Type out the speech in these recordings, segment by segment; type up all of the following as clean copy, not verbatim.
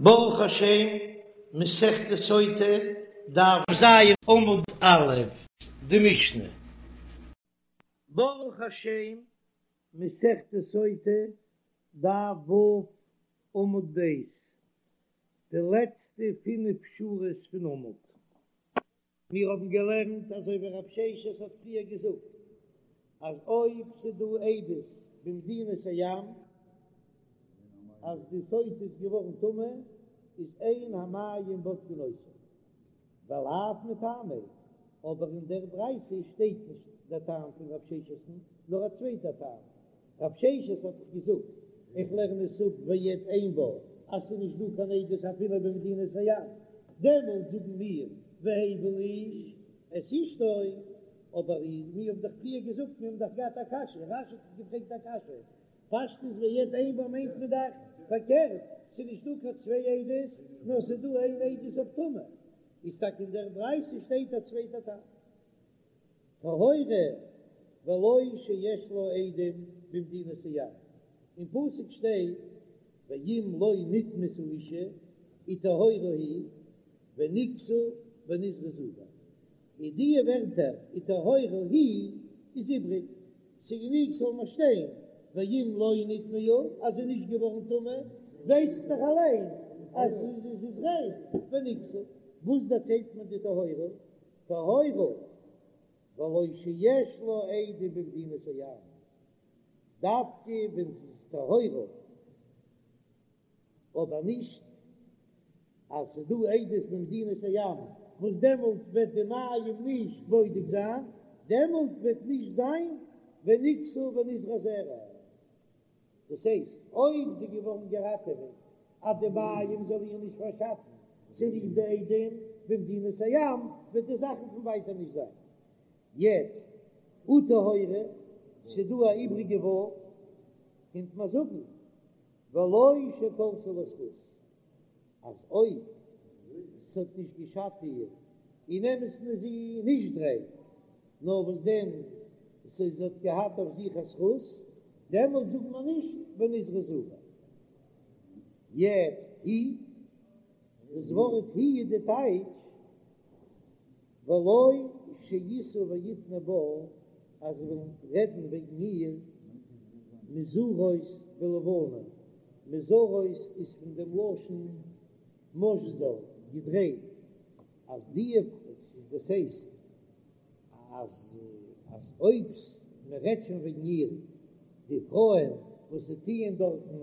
ברוך השם, מסכת סוטה, דף ז עמוד א', די משנה. ברוך השם, מסכת סוטה, דף ו' עמוד ב', די לעצטע פינף שורות פון עמוד. מיר האבן געלערנט אזוי ווי רב ששת האט פריער געזאגט, אז אויב ס'דא עדות במדינת הים אז די סוטה איז געווארן טמא, איז אין המים בודקין אותה, ולאו מטעמיה, אבער אין דער ברייתא שטייט נישט דער טעם פון רב ששת'ן, נאר א צווייטער טעם, רב ששת האט דאך געזאגט, איך לערן עס אפ ועד אין בה, אז ס'איז נישט דא קיין עדות אפילו במדינת הים, דעמאלט זאגן מיר והביא האיש את אשתו, אבער מיר האבן דאך פריער געזאגט, מיר האבן דאך געהאט א קשיא, רש"י האט געפרעגט א קשיא, פשטות ועד אין בה מיינט מען דאך פארקערט, ס'איז נישט דא קיין צוויי עדות, נאר ס'איז דא איין עדות אויף טומאה, איז טאקע אין דער ברייתא שטייט א צווייטע טעם. טהורה ולא שיש לה עדים במדינת הים, אין פסוק שטייט ואם לא נטמאת האשה וטהורה היא ונקתה ונזרעה זרע, און די ווערטער וטהורה היא איז איבריג, ס'גענוג ס'זאל נאר שטיין ואם לא נטמאה אז זי איז נישט געווארן טמא, ווייס איך דאך אליין אז זי איז ריין, ונקתה, וואס דערציילט מיר די טהורה? טהורה ולא שיש לה עדים במדינת הים, דווקא ווען זי איז טהורה, אבער נישט אז ס'איז דא עדות במדינת הים וואס דעמאלט וועט די מים נישט בודק זיין, דעמאלט וועט נישט זיין ונקתה ונזרעה זרע. דאס הייסט, אויב זי איז געווארן געראטעוועט אז די מים זאל איר נישט פארשאטן צוליב די עדים במדינת הים, וועט די זאכן פון ווייטער נישט זיין. יעצט, וטהורה, ס'איז דא א איבריגע ו', קומט מען זאגן ולא שתלתה לה זכות. אז אויב ס'האט נישט געשאדט איר, אין אמת'ן איז זי נישט ריין, נאר וואס דען זי האט געהאט אויף זיך א זכות, דעמאלט זאגט מען נישט ונזרעה זרע. יעצט היא, דאס ווארט היא איז די טייטש ולא שישאו ויתנו בה, אז זיי וועלן רעדן וועגן איר מוזרות בלבנה, מוזרות איז פון דעם לשון משזר, געדרייט, אז די, דאס הייסט אז אז אויב מען רעדט שוין וועגן איר, די פרויען וואס זיי טוען דארטן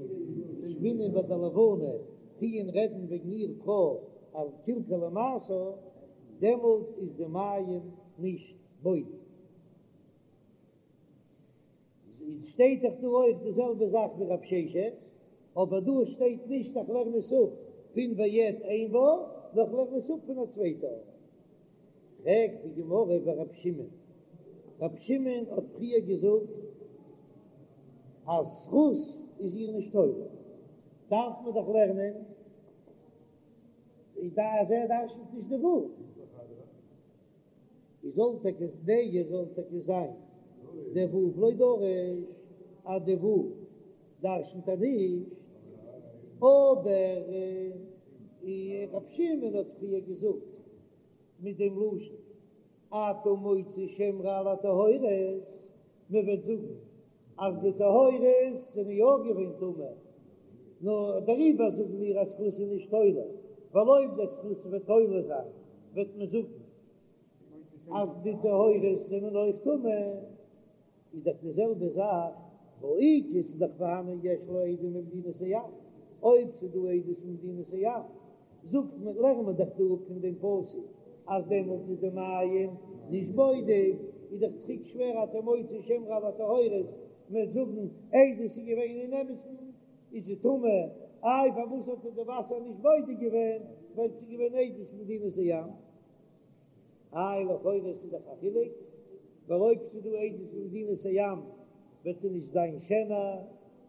שפינען ביי די לבנה, טוען רעדן וועגן איר פרוי אז קלקלה מעשה, דעמאלט איז די מים נישט בודק. איז שטייט דאך דא אויך די זעלבע זאך ווי רב ששת, אבער דא שטייט נישט איך לערן עס אפ פון ועד אין בה, נאר איך לערן עס אפ פון א צווייטע ארט. פרעגט די גמרא ורב שמעון, רב שמעון האט פריער געזאגט אז זכות איז איר נישט תולה, דארף מען דאך לערנען אז ער דרש'נט נישט די ו'. איז זאל טאקע נהי זאל טאקע זיין דער ו' לא דריש אז די ו' דרש'נט ער נישט, אבער רב שמעון האט פריער געזאגט מיט דעם לשון אתה מוציא שם רע על הטהורות, מען וועט זאגן אז די טהורות זענען יא געווען טמא, נו דעריבער זאגן מיר אז זכות איז נישט תולה, ווייל אויב דער זכות וועט תולה זיין וועט מען זאגן אז די טהורות זענען אויך טמא, איז דאך די זעלבע זאך, והא איכא ס'איז דאך פארהאנען יש לה עדים במדינת הים, אויב ס'איז דא עדות במדינת הים, זאגט מען, לערנט מען דאך דא אפ פון דעם פסוק אז דעמאלט איז די מים נישט בודק, איז דאך צוריק שווער אתה מוציא שם רע על הטהורות, מ'וועט זאגן עדות איז געווען אין אמת'ן איז זי טמא, איי פארוואס האט ער די וואסער נישט בודק געווען, ווייל ס'איז געווען עדות במדינת הים. איי לכאורה ס'איז דאך א חילוק, ווייל אויב ס'איז דא עדות במדינת הים וועט זי נישט זיין שענער,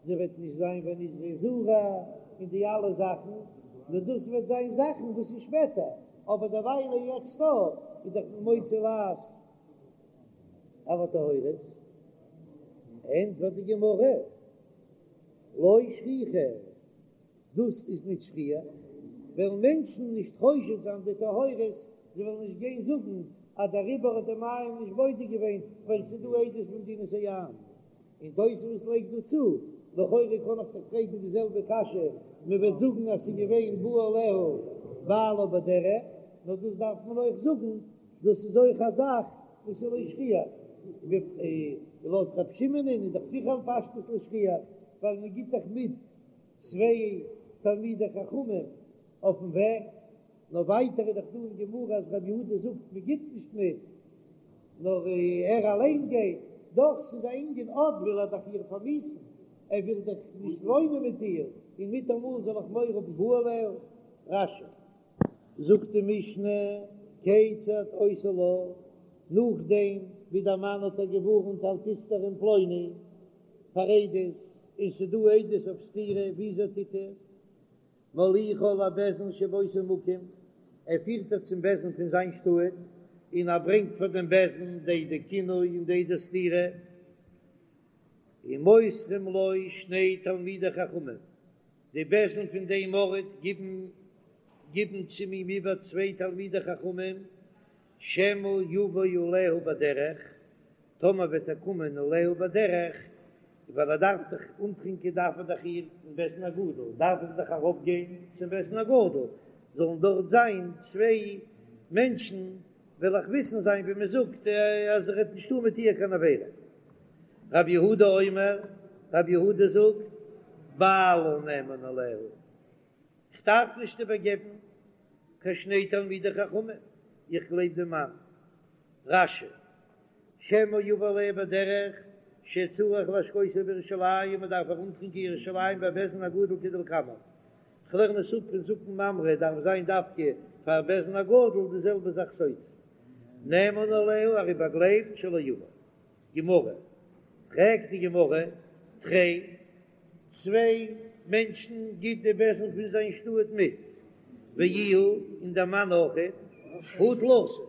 זי וועט נישט זיין ונזרעה זרע און די אלע זאכן, נאר דאס וועט זיין זאכן וואס איז שפעטער, אבער דערוויילע יעצט דא איז דאך מוציא לעז על הטהורות. ענטפערט די גמרא, לא שכיחא. דאס איז נישט שכיח. וועלן מענטשן נישט חושד זיין די טהורות, זיי וועלן נישט גיין זאגן אז דעריבער האט די מים נישט בודק געווען ווייל ס'איז דא עדות במדינת הים. און תוספות לייגט דא צו, לכאורה קען איך דאך פרעגן די זעלבע קשיא, מען וועט זאגן אז ס'איז געווען בא עליה בעלה בדרך, נאר דאס דארף מען אויך זאגן, דאס איז אויך א זאך וואס איז לא שכיח, לויט רב שמעון איז דאך זיכער פשטות לא שכיח, ווייל מען גיט דאך מיט צוויי תלמידי חכמים אויפן וועג, נאר ווייטער איז דאך דא אין גמרא אז רבי יהודה זאגט מען גיט נישט מיט, נאר ער אליין גייט, דאך ס'איז א ענין אט וויל ער דאך איר פארמיאוסן, ער וויל דאך נישט וואוינען מיט איר, און מיטאמאל זאל איך מורא האבן בא עליה. רש"י. זאגט די משנה, כיצד עושה לה, נאכדעם ווי דער מאן האט איר געווארנט אל תסתרי עם פלוני פאר עדות, און ס'איז דא עדות אויף סתירה, וויאזוי טוט ער? מוליכה לבית דין שבאותו מקום, ער פירט איר צום בית דין פון זיין שטאט, און ער ברענגט פאר דעם בית דין די עדי קינוי און די עדי סתירה, ומוסרים לו שני תלמידי חכמים, די בית דין פון דעם ארט גיבן גיבן צו אים איבער צוויי תלמידי חכמים, שמא יבא עליה בדרך, טאמער וועט ער קומען עליה בדרך, ווייל ער דארף דאך אנטרינקען דארף ער דאך איר אין בית דין הגדול, דארף עס דאך ארויף גיין צום בית דין הגדול, זאלן דארט זיין צוויי מענטשן, וועל איך וויסן זיין ווי מען זאגט אז ער וועט נישט טון מיט איר קיין עבירה. רבי יהודה אומר, רבי יהודה זאגט, בעלה נאמן עליה, כ'דארף נישט איבערגעבן קיין שני תלמידי חכמים, איך גלייב דעם מאן. רש"י, שמא יבא עליה בדרך שצריך להשקותה בירושלים, מען דארף איר אנטרינקען ירושלים בבית דין הגדול כדלקמן, כ'לערן עס אפ פון זקן ממרא דארף זיין דווקא פאר בית דין הגדול די זעלבע זאך סוטה נאמן עליה ער איז באגלייבט שלא יבא. גמרא, פרעגט די גמרא, תרי, צוויי מענטשן גיט די בית דין פון זיין שטאט מיט, ואיהו און דער מאן אויכעט, הא תלתא,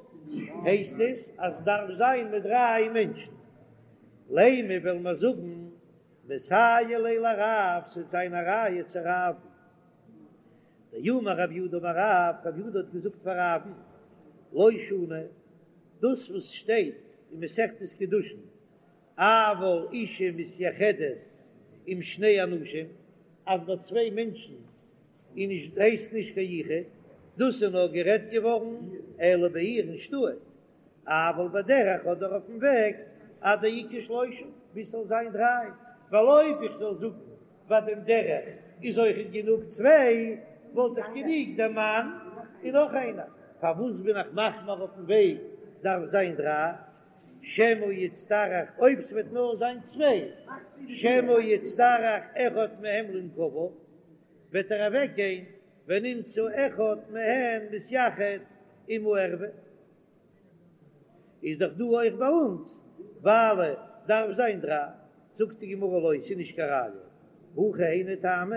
הייסט עס אז עס דארף זיין מיט דריי מענטשן, לימא וועלן מיר זאגן מסייע ליה לרב, ס'וועט זיין א ראיה צו רב'ן. דאמר רב יהודה אמר רב, רב יהודה האט געזאגט פאר רב'ן, לא שנו, דאס וואס שטייט אין מסכת קידושין, אבל אשה מתייחדת עם שני אנשים, אז ביי צוויי מענטשן איז נישט הייסט נישט קיין יחוד, דאס איז נאר גערעדט געווארן אלא בעיר אין שטאט, אבל בדרך אדער אויפן וועג עד דאיכא שלושה ביז ס'זאל זיין דריי, ווייל אויב איך זאל זאגן ביי דעם דרך איז אויכעט גענוג צוויי, וואלט איך גענוג דער מאן און נאך איינער, פארוואס בין איך מחמיר אויפן וועג דארף זיין דריי? שמא יצטרך אויב ס'וועט נאר זיין צוויי, שמא יצטרך אחד מהם לנקביו, וועט ער אוועק גיין ונמצא אחד מהן מתייחד עם הערוה. איז דאך דא אויך ביי אונז ווייל דארף זיין דריי, זאגט די גמרא לא, ס'איז נישט קיין ראיה, הכא היינו טעמא,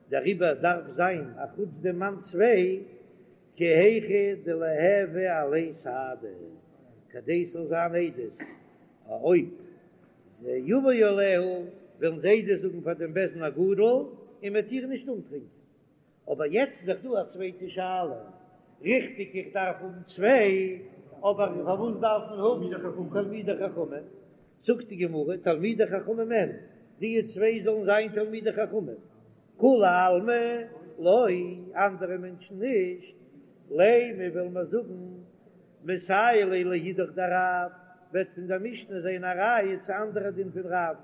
דעריבער דארף זיין א חוץ דעם מאן צוויי, כי היכי דליהוו עליה סהדי, כדי ס'זאל זיין עדות, אויב זה יבוא עליה וועלן זיי עדות זאגן פאר דעם בית דין הגדול און מ'וועט איר נישט אנטרינקען. אבער יעצט איז דאך דא א צווייטע שאלה, ריכטיג איך דארף האבן צוויי, אבער פארוואס דארף מען האבן תלמידי חכמים? זאגט די גמרא, תלמידי חכמים אין, די צוויי זאלן זיין תלמידי חכמים, כולי עלמא לא, אנדערע מענטשן נישט, לימא וועלן מיר זאגן, מסייע ליה לאידך דרב, וועט פון דער משנה זיין א ראיה צו אנדערע דין פון רב,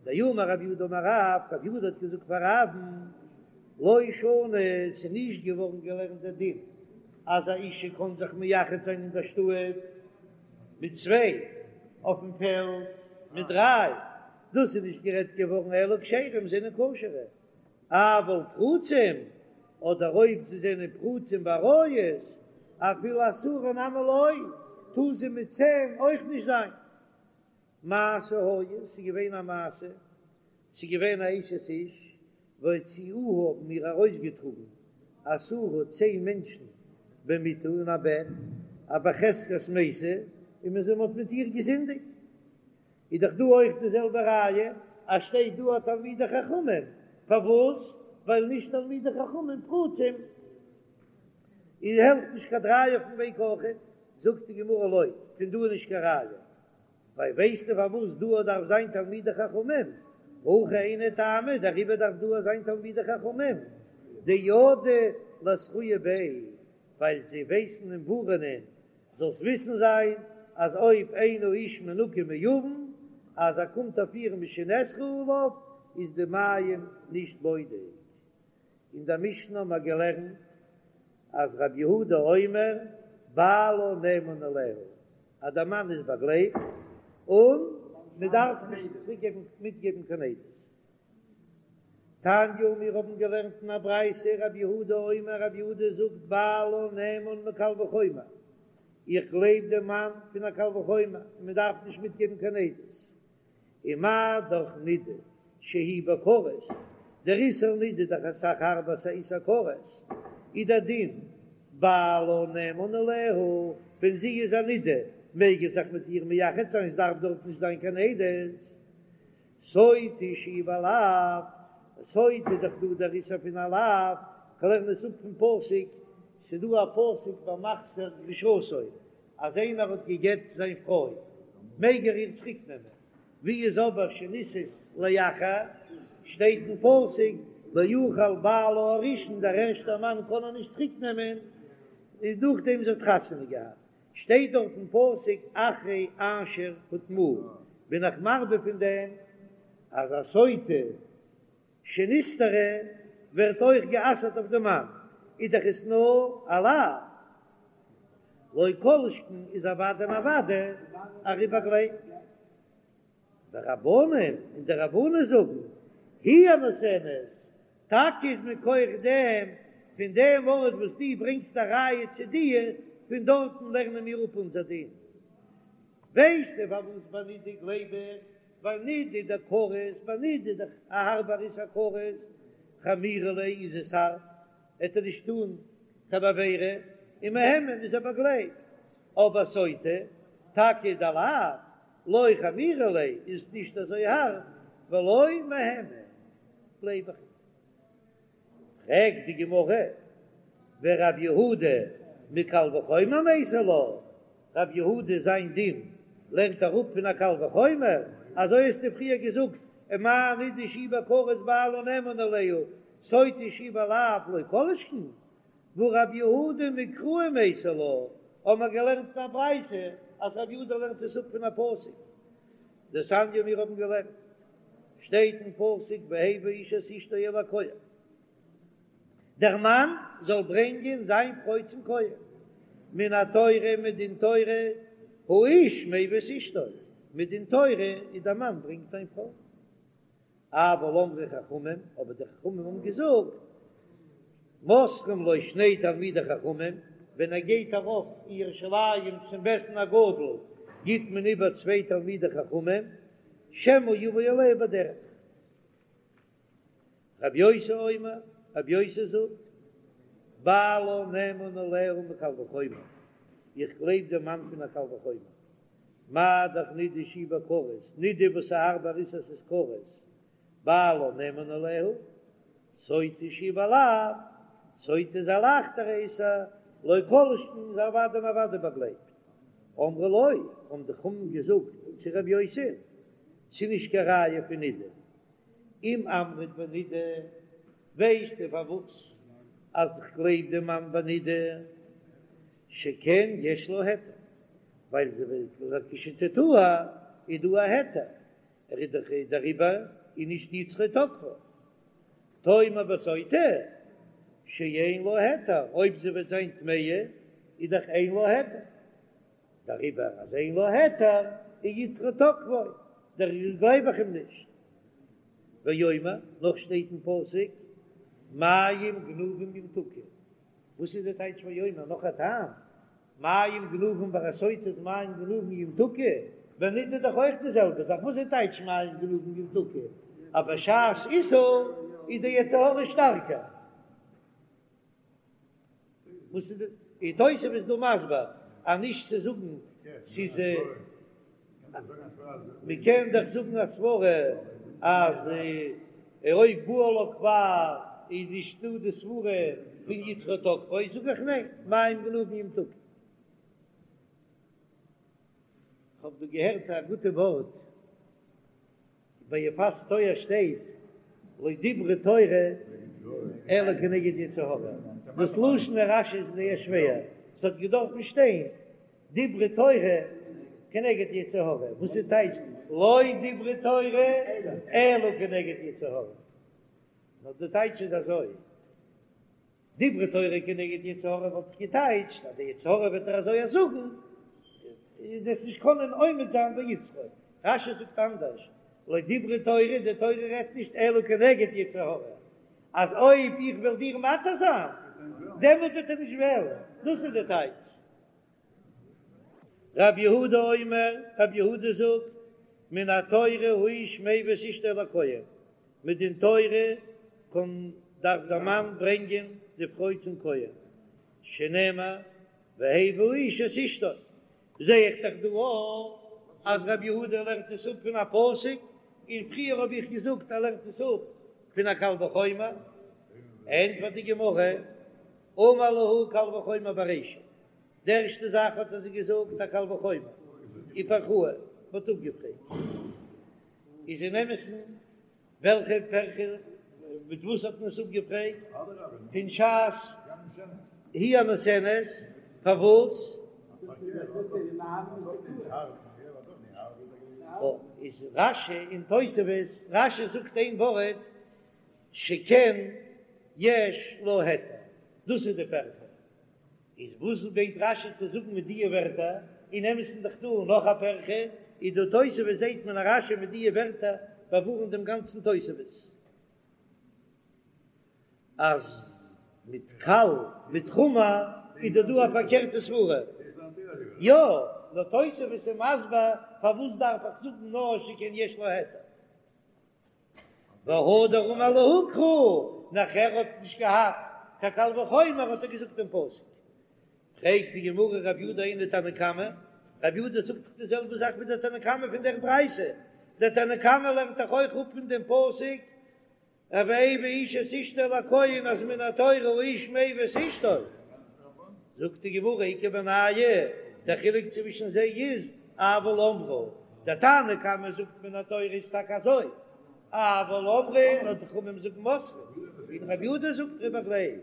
דאמר רב יהודה אמר רב, רב יהודה האט געזאגט פאר רב'ן, לא שנו, ס'איז נישט געווארן געלערנט דער דין אז א אישה קען זיך מייחד זיין אין דער שטאט מיט צוויי, אויפן פעלד מיט דריי, דאס איז נישט גערעדט געווארן אלא כשרים זענען כשר'ע, אבל פרוצים, אדער אויב זיי זענען פרוצים בעריות, אפילו עשרה נמי לא, טאר זי מיט צען אויך נישט זיין. מעשה היה, ס'איז געווען א מעשה, ס'איז געווען א אשת איש, והוציאוה האבן איר ארויסגעטראגן עשרה צען מענטשן במיטה אין א בעט, א בחזקת מתה, און מען זאל האט מיט איר געזינדיגט. איז דאך דא אויך די זעלבע ראיה, אז שטייט דא א תלמידי חכמים, פארוואס? ווייל נישט תלמידי חכמים פרוצים. און העלפט נישט קיין דריי אויפן וועג אויכעט, זאגט די גמרא לא, פון דא איז נישט קיין ראיה, ווייל ווייסטו פארוואס דא דארף זיין תלמידי חכמים, הכי היינו טעמא, דעריבער דארף דא זיין תלמידי חכמים, דידעי לאתרויי ביה, ווייל זיי ווייסן אים ווארענען, זאלסט וויסן זיין אז אויב אין האיש מנוקה מעוון, אז ער קומט אויף איר משנאסרה עליו, איז די מים נישט בודק. אין דער משנה האבן מיר געלערנט אז רבי יהודה אומר בעלה נאמן עליה, אז דער מאן איז באגלייבט און מען דארף נישט צוריקגעבן מיטגעבן קיין עדות. תניא, מיר האבן געלערנט אין א ברייתא, רבי יהודה אומר, רבי יהודה זאגט בעלה נאמן מקל וחומר, איך גלייב דעם מאן פון א קל וחומר און מען דארף נישט מיטגעבן קיין עדות. ומה דאך נידה שהיא בכרת, דער איסור נידה איז דאך אסאך הארבער ס'איז א איסור כרת, איז דער דין בעלה נאמן עליה, ווען זי איז א נידה מעג ער זיך מיט איר מייחד זיין עס דארף דארט נישט זיין קיין עדות, סוטה שהיא בלאו, סוטה איז דאך דא דער איסור פון א לאו, כ'לערן עס אפ פון פסוק, ס'איז דא א פסוק במחזיר גרושתו אז איינער האט גע'גט זיין פרוי מעג ער איר צוריק נעמען, ווי איז אבער שנישאת לאחר, שטייט אין פסוק לא יוכל בעלה הראשון דער ערשטער מאן קען איר נישט צוריק נעמען, איז נאכדעם זי האט חתונה געהאט, שטייט דארט אין פסוק אחרי אשר הוטמאה, בין איך מרבה פון דעם אז א סוטה שנסתרה ווערט אויך גע'אסר'ט אויף די מאן, איז דאך עס נאר א לאו, לא כל שכן איז אוודאי און אוודאי ער איז באגלייבט. ורבנן און די רבנן זאגן, היא הנותנת, טאקע איז מכח דעם, פון דעם ארט וואס דו ברענגסט א ראיה צו דיר, פון דארטן לערנען מיר אפ אונזער דין. ווייסטו פארוואס ביי נידה גלייב איך? ווייל נידה דכרת, ביי נידה איז דאך א הארבער איסור כרת, חמירא ליה איז עס הארב, עט ער נישט טון קיין עבירה, און מהימן איז ער באגלייבט, אבער סוטה, טאקע דלאו, לא חמירא ליה איז נישט אזוי הארב, ולא מהימן, גלייב איך נישט. פרעגט די גמרא, ורב יהודה מקל וחומר מייתי לה, רב יהודה זיין דין לערנט אראפ פון א קל וחומר, אזוי האסטו פריער געזאגט, ומה נידה שהיא בכרת בעלה נאמן עליה, סוטה שהיא בלאו לא כל שכן, והא רב יהודה מקרא מייתי לה, האבן מיר געלערנט אין א ברייתא אז רב יהודה לערנט עס אפ פון א פסוק, דתניא מיר האבן געלערנט, שטייט אין פסוק והביא האיש את אשתו אל הכהן, דער מאן זאל ברענגען זיין פרוי צום כהן, מן התורה מדין תורה האיש מביא את אשתו, מדין תורה איז דער מאן ברענגט זיין פרוי. אבל אמרו חכמים, אבער די חכמים האבן געזאגט, מוסרים לו שני תלמידי חכמים, ווען ער גייט ארויף אין ירושלים צום בית דין הגדול, גיט מען איבער צוויי תלמידי חכמים, שמא יבא עליה בדרך. רבי יוסי אומר, רבי יוסי זאגט, בעלה נאמן עליה מקל וחומר, איך גלייב דעם מאן פון א קל וחומר, מה דאך נידה שהיא בכרת, נידה וואס איז הארבער איסור ס'איז כרת, בעלה נאמן עליה, סוטה שהיא בלאו, סוטה איז א לייכטערע איסור, לא כל שכן איז אוודאי און אוודאי באגלייבט. אמרו לו, האבן די חכמים געזאגט צו רבי יוסי, ס'איז נישט קיין ראיה פון נידה, אם אמרת בנידה, ווייסטו פארוואס אז איך גלייב דעם מאן בנידה, שכן יש לה היתר, ווייל זי וועט לכשתטהר איז דא א היתר, ער איז דאך דעריבער איז נישט יצרו תוקפו. תאמר בסוטה שאין לה היתר, אויב זי וועט זיין טמאה איז דאך אין לה היתר, דעריבער אז אין לה היתר איז יצרו תוקפו, דעריבער גלייב איך אים נישט. ואומר, נאך שטייט אין פסוק מים גנובים ימתקו, וואס איז די טייטש ואומר נאך א טעם? מים גנובים ביי א סוטה איז מים גנובים ימתקו, ביי נידה איז דאך אויך די זעלבע זאך, וואס איז טייטש מים גנובים ימתקו? אז בשעת איסור איז די יצר הרע שטארקער. וואס איז די תוספות איז דא מסביר אז נישט צו זאגן ס'איז מען קען דאך זאגן א סברא אז אויב בעלה כבר. איז נישטא די סברה פון יצרו תוקפו, זאג איך ניין, מים גנובים ימתקו. כ'האב דא געהערט א גוטע ווארט, ביי יפת תואר שטייט לא דברה תורה אלא כנגד יצר הרע, דאס לשון רש"י איז זייער שווער, ס'האט געדארפן שטיין דברה תורה כנגד יצר הרע, וואס איז טייטש לא דברה תורה אלא כנגד יצר הרע? נאר די טייטש איז אזוי. דברה תורה כנגד יצר הרע וואלט איך געטייטשט אז די יצר הרע וועט ער אזוי זאגן, איז עס נישט קענען עומד זיין ביצרו. רש"י זאגט אנדערש, לא דברה תורה, די תורה רעדט נישט אלא כנגד יצר הרע, אז אויב איך וועל דיר מתיר זיין, דעמאלט וועט ער נישט וועלן, דאס איז די טייטש. רב יהודה אומר, רב יהודה זאגט, מן התורה האיש מביא את אשתו לכהן, מדין תורה קען דארף דער מאן ברענגען די פרוי צום כהן, שנאמר והביא האיש את אשתו, זע איך דאך דא אויך אז רב יהודה לערנט עס אפ פון א פסוק, און פריער האב איך געזאגט ער לערנט עס אפ פון א קל וחומר, ענטפערט די גמרא, אמר להו קל וחומר ברישא, די ערשטע זאך האט ער זיי געזאגט א קל וחומר, ופרכוה, מ'האט אפגעפרעגט, איז אין אמת'ן וועלכע פירכא, מיט וואס האט מען עס אפגעפרעגט, פון שעת היא הנותנת, פארוואס? איז רש"י און תוספות, רש"י זאגט איין ווארט שכן יש לה היתר, דאס איז די פירכא. איז וואס מיינט רש"י צו זאגן מיט דיע ווערטער? אין אמת'ן איז דאך דא נאך א פירכא, איז דא תוספות זעהט מען אז רש"י מיט דיע ווערטער באווארנט דעם גאנצן תוספות אז מיט קל מיט חמור איז דא דא א פארקערטע סברה. יא, נאר תוספות איז מסביר פארוואס דארף איך זאגן נאר שכן יש לה היתר. והדר אמר להו קרא, נאכער האט נישט געהאט קיין קל וחומר האט ער געזאגט דעם פסוק. פרעגט די גמרא רב יודא היינו תנא קמא, רב יודא זאגט דאך די זעלבע זאך ווי דער תנא קמא פון דער ברייתא, דער תנא קמא לערנט דאך אויך אפ פון דעם פסוק והביא האיש את אשתו אל הכהן אז מן התורה האיש מביא את אשתו, זאגט די גמרא איכא בינייהו, דער חילוק צווישן זיי איז אבל אמרו, דער תנא קמא זאגט מן התורה איז טאקע אזוי, אבל אמרו, נאר די חכמים זאגן מוסרין, און רבי יהודה זאגט ער איז באגלייבט.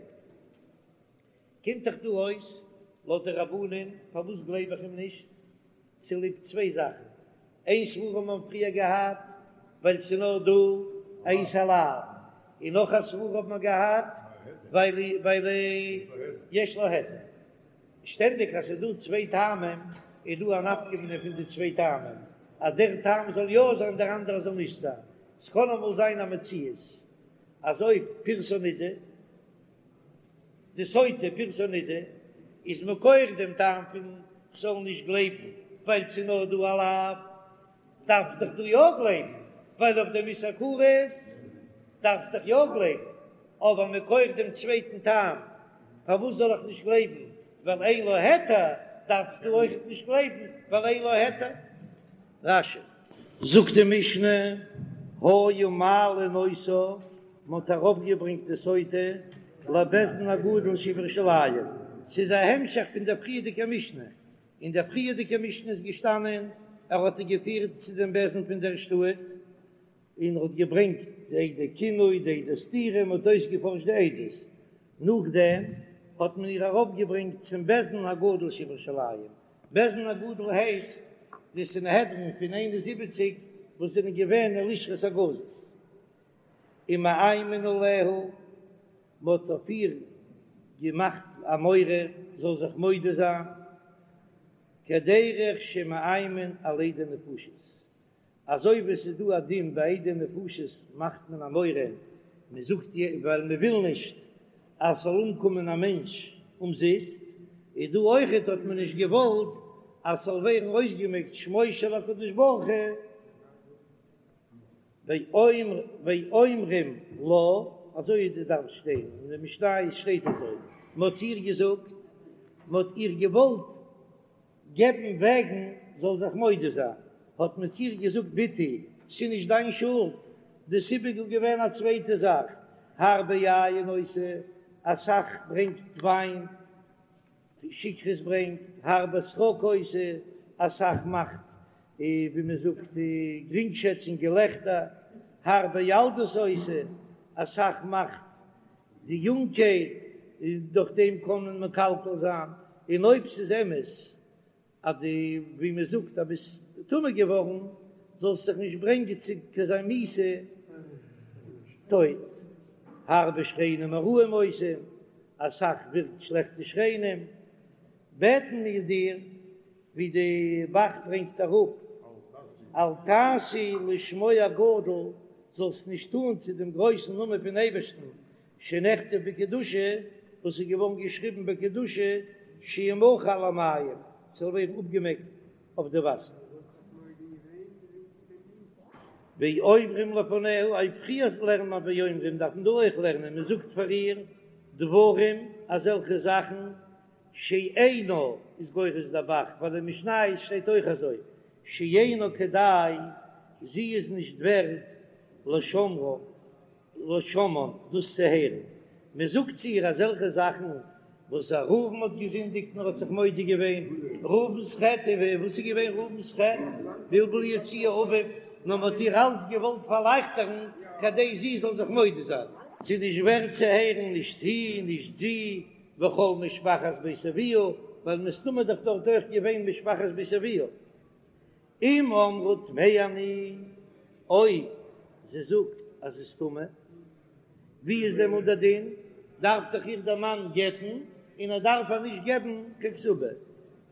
קומט דאך דא אויס לויט די רבנן, פארוואס גלייב איך אים נישט? צוליב צוויי זאכן, איין סברא האט מען פריער געהאט ווייל ס'איז נאר דא א איסור לאו, און נאך א סברא האט מען געהאט ווייל ווייל יש לה היתר. שטענדיג אז ס'איז דא צוויי טעמים איז דא א נפקא מינה פון די צוויי טעמים אז דער טעם זאל יא זיין דער אנדערע זאל נישט זיין. ס'קען אמאל זיין א מציאות אז אויב פירסה נידה די סוטה פירסה נידה איז מכח דעם טעם פון כ'זאל נישט גלייבן ווייל ס'איז נאר דא א לאו, דארף איך דאך דא יא גלייבן ווייל אויף דעם איסור כרת דארף איך דאך יא גלייבן, אבער מכח דעם צווייטן טעם פארוואס זאל איך נישט גלייבן ווייל אין לה היתר, דארף איך דא אויכעט נישט גלייבן ווייל אין לה היתר. רש"י. זאגט די משנה, היו מעלין אותה, מען האט ארויפגעברענגט די סוטה לבית דין הגדול שבירושלים, ס'איז א המשך פון דער פריערדיגער משנה, אין דער פריערדיגער משנה איז געשטאנען ער האט איר געפירט צו דעם בית דין פון דער שטאט, און ער האט געברענגט די עדי קינוי, די עדי סתירה, מען האט אויסגעפארשט די עדות, נאכדעם האט מען איר ארויפגעברענגט צום בית דין הגדול שבירושלים, בית דין הגדול הייסט די סנהדרין פון 71 וואס זענען געווען אין לשכת הגזית, ומאיימין עליה, מען האט אויף איר געמאכט א מורא זאל זיך מודה זיין, כדרך שמאיימין על עדי נפשות, אזוי ווי עס איז דא א דין ביי עדי נפשות מאכט מען א מורא, מען זאגט ווייל מען וויל נישט אז ס'זאל אומקומען א מענטש אומזיסט, איז דא אויכעט האט מען נישט געוואלט אז ס'זאל ווערן אויסגעמעקט שמו של הקדוש ברוך הוא, ואומרים לה, אזוי דארף שטיין, אין די משניות שטייט אזוי, מען האט איר געזאגט, מען האט איר געוואלט געבן וועגן זאל זיך מודה זיין, האט מען צו איר געזאגט בתי, ס'איז נישט דיין שולד, די סיבה איז געווען א צווייטע זאך. הרבה יין עושה, אסאך ברענגט וויין, שכרות ברענגט, הרבה שחוק עושה, אסאך מאכט ווי מען זאגט גרינגשעצונג געלעכטער, הרבה ילדות עושה, אסאך מאכט די יונגקייט, און דורך דעם קען מען מקלקל זיין, און אויב ס'איז אמת אז דו ווי מען זאגט אז ביסט טמא געווארן, זאלסט זיך נישט ברענגען צו אזא מיתה טויט. הרבה שכנים הרעים עושים, אסאך ווירקט שלעכטע שכנים, בעטן מיר דיר, ווי די ב"ח ברענגט אראפ, אל תעשי לשמו הגדול, זאלסט נישט טון צו דעם גרויסן נאמען פון אייבערשטן, שנכתב בקדושה, וואס איז געווארן געשריבן בקדושה, שימחה על המים, ס'זאל ווערן אפגעמעקט אויף די וואסער. ואומרים לפניה, אויב פריער לערנט מען ואומרים דארף מען דא אויך לערנען, מען זאגט פאר איר דברים, אזעלכע זאכן, שאינה איז גורס דער ב"ח, ווייל אין משניות שטייט אויך אזוי, שאינה כדאי, זי איז נישט ווערד לשומרה, לשומען, דאס צו הערן. מען זאגט צו איר אזעלכע זאכן וואס א ראובן האט געזינדיגט און ער האט זיך מודה געווען, ראובן'ס חטא, און וואס איז געווען ראובן'ס חטא? בלבול יציעי אביו, נאר מען האט איר אלץ געוואלט פארלייכטערן כדי זי זאל זיך מודה זיין. ס'איז נישט ווערד צו הערן, נישט היא, נישט זי, וכל משפחת בית אביה, ווייל מסתמא איז דאך דארט אויך געווען משפחת בית אביה. אם אמרה טמאה אני, אויב זי זאגט אז זי איז טמא, ווי איז דעמאלט דער דין? דארף דאך איר דער מאן גט'ן, און ער דארף איר נישט געבן קיין כתובה.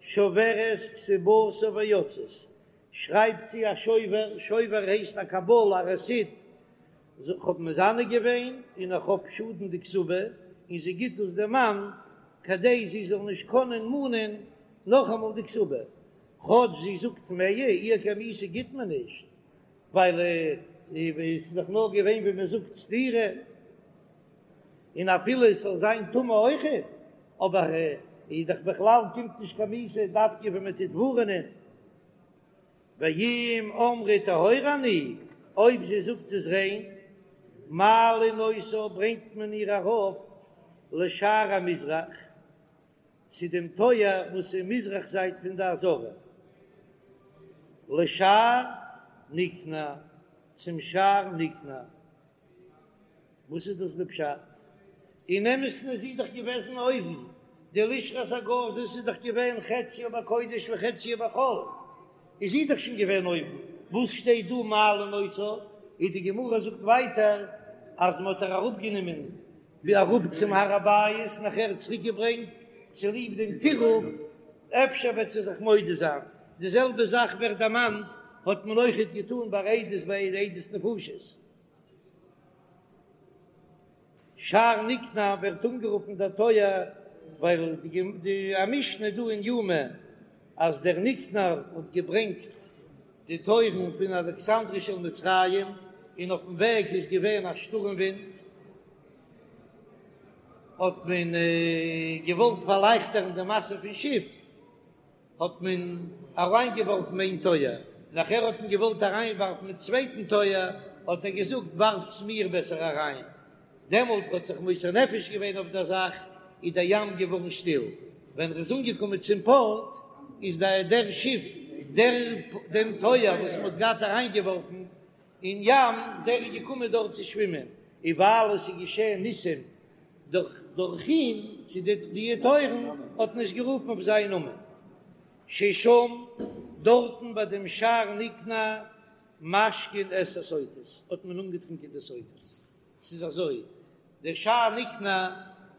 שוברת כתובתה ויוצאת, שרייבט זי א שובר, שובר הייסט א קבלה, א רעסיט, איך האב מזנה געווען און איך האב שאדן די כתובה, און זי גיט דאס דעם מאן כדי זי זאל נישט קענען מאנען נאכאמאל די כתובה, כאטש זי זאגט טמאה, איר קיין מיתה גיט מען נישט, ווייל עס איז דאך נאר געווען ווי מען זאגט סתירה, און אפילו עס זאל זיין טמא אויכעט, אבער איז דאך בכלל קומט נישט קיין מיתה דווקא ווען מען טוט ווארענען. ואם אמרה טהורה אני, אויב זי זאגט זי איז ריין, מעלין אותה ברענגט מען איר ארויף לשער המזרח, צו דעם טויער וואס איז מזרח זייט פון די עזרה, לשער ניקנור, צום שער ניקנור. וואס איז דאס די פשט? אין אמת'ן איז זי דאך געוועזן אויבן, די לשכת הגזית איז דאך געווען חציה בקודש וחציה בחול, איז זי דאך שוין געווען אויבן, וואס שטייט דא מעלין אותה? איז די גמרא זאגט ווייטער אז מען האט איר אראפגענומען ווי אראפ צום הר הבית נאכער צוריק געברענגט צוליב דעם טירוף, אפשר וועט זי זיך מודה זיין, די זעלבע זאך ווערט דערמאנט האט מען אויכעט געטאן ביי עדות ביי עדות נפשות. שער ניקנור ווערט אנגערופן דער טויער ווייל די א משנה דא אין יומא אז דער ניקנור האט געברענגט די טויערן פון אלכסנדריה של מצרים און אויפן וועג איז געווען א שטורעם ווינט האט מען געוואלט פארלייכטערן די משא פון שיף האט מען אריינגעווארפן איין טויער, נאכער האט מען געוואלט אריינווארפן מיט צווייטן טויער, האט ער געזאגט ווארפטס מיר בעסער אריין, דעמאלט האט זיך מוסר נפש געווען אויף דער זאך, איז דער ים געווארן שטיל, ווען ער איז אנגעקומען צום פארט, איז דער דער שיף, דער דעם טויער וואס מען האט געהאט אריינגעווארפן אין ים, דער איז געקומען דארט צו שווימען, און ווייל עס איז געשען ניסים דורך דורך אים צו די די טויערן האט מען עס גערופן אויף זיין נאמען ששם דארטן ביי דעם שער ניקנור משקין את הסוטות האט מען אנגעטרינקען די סוטות ס'איז אזוי דער שער ניקנור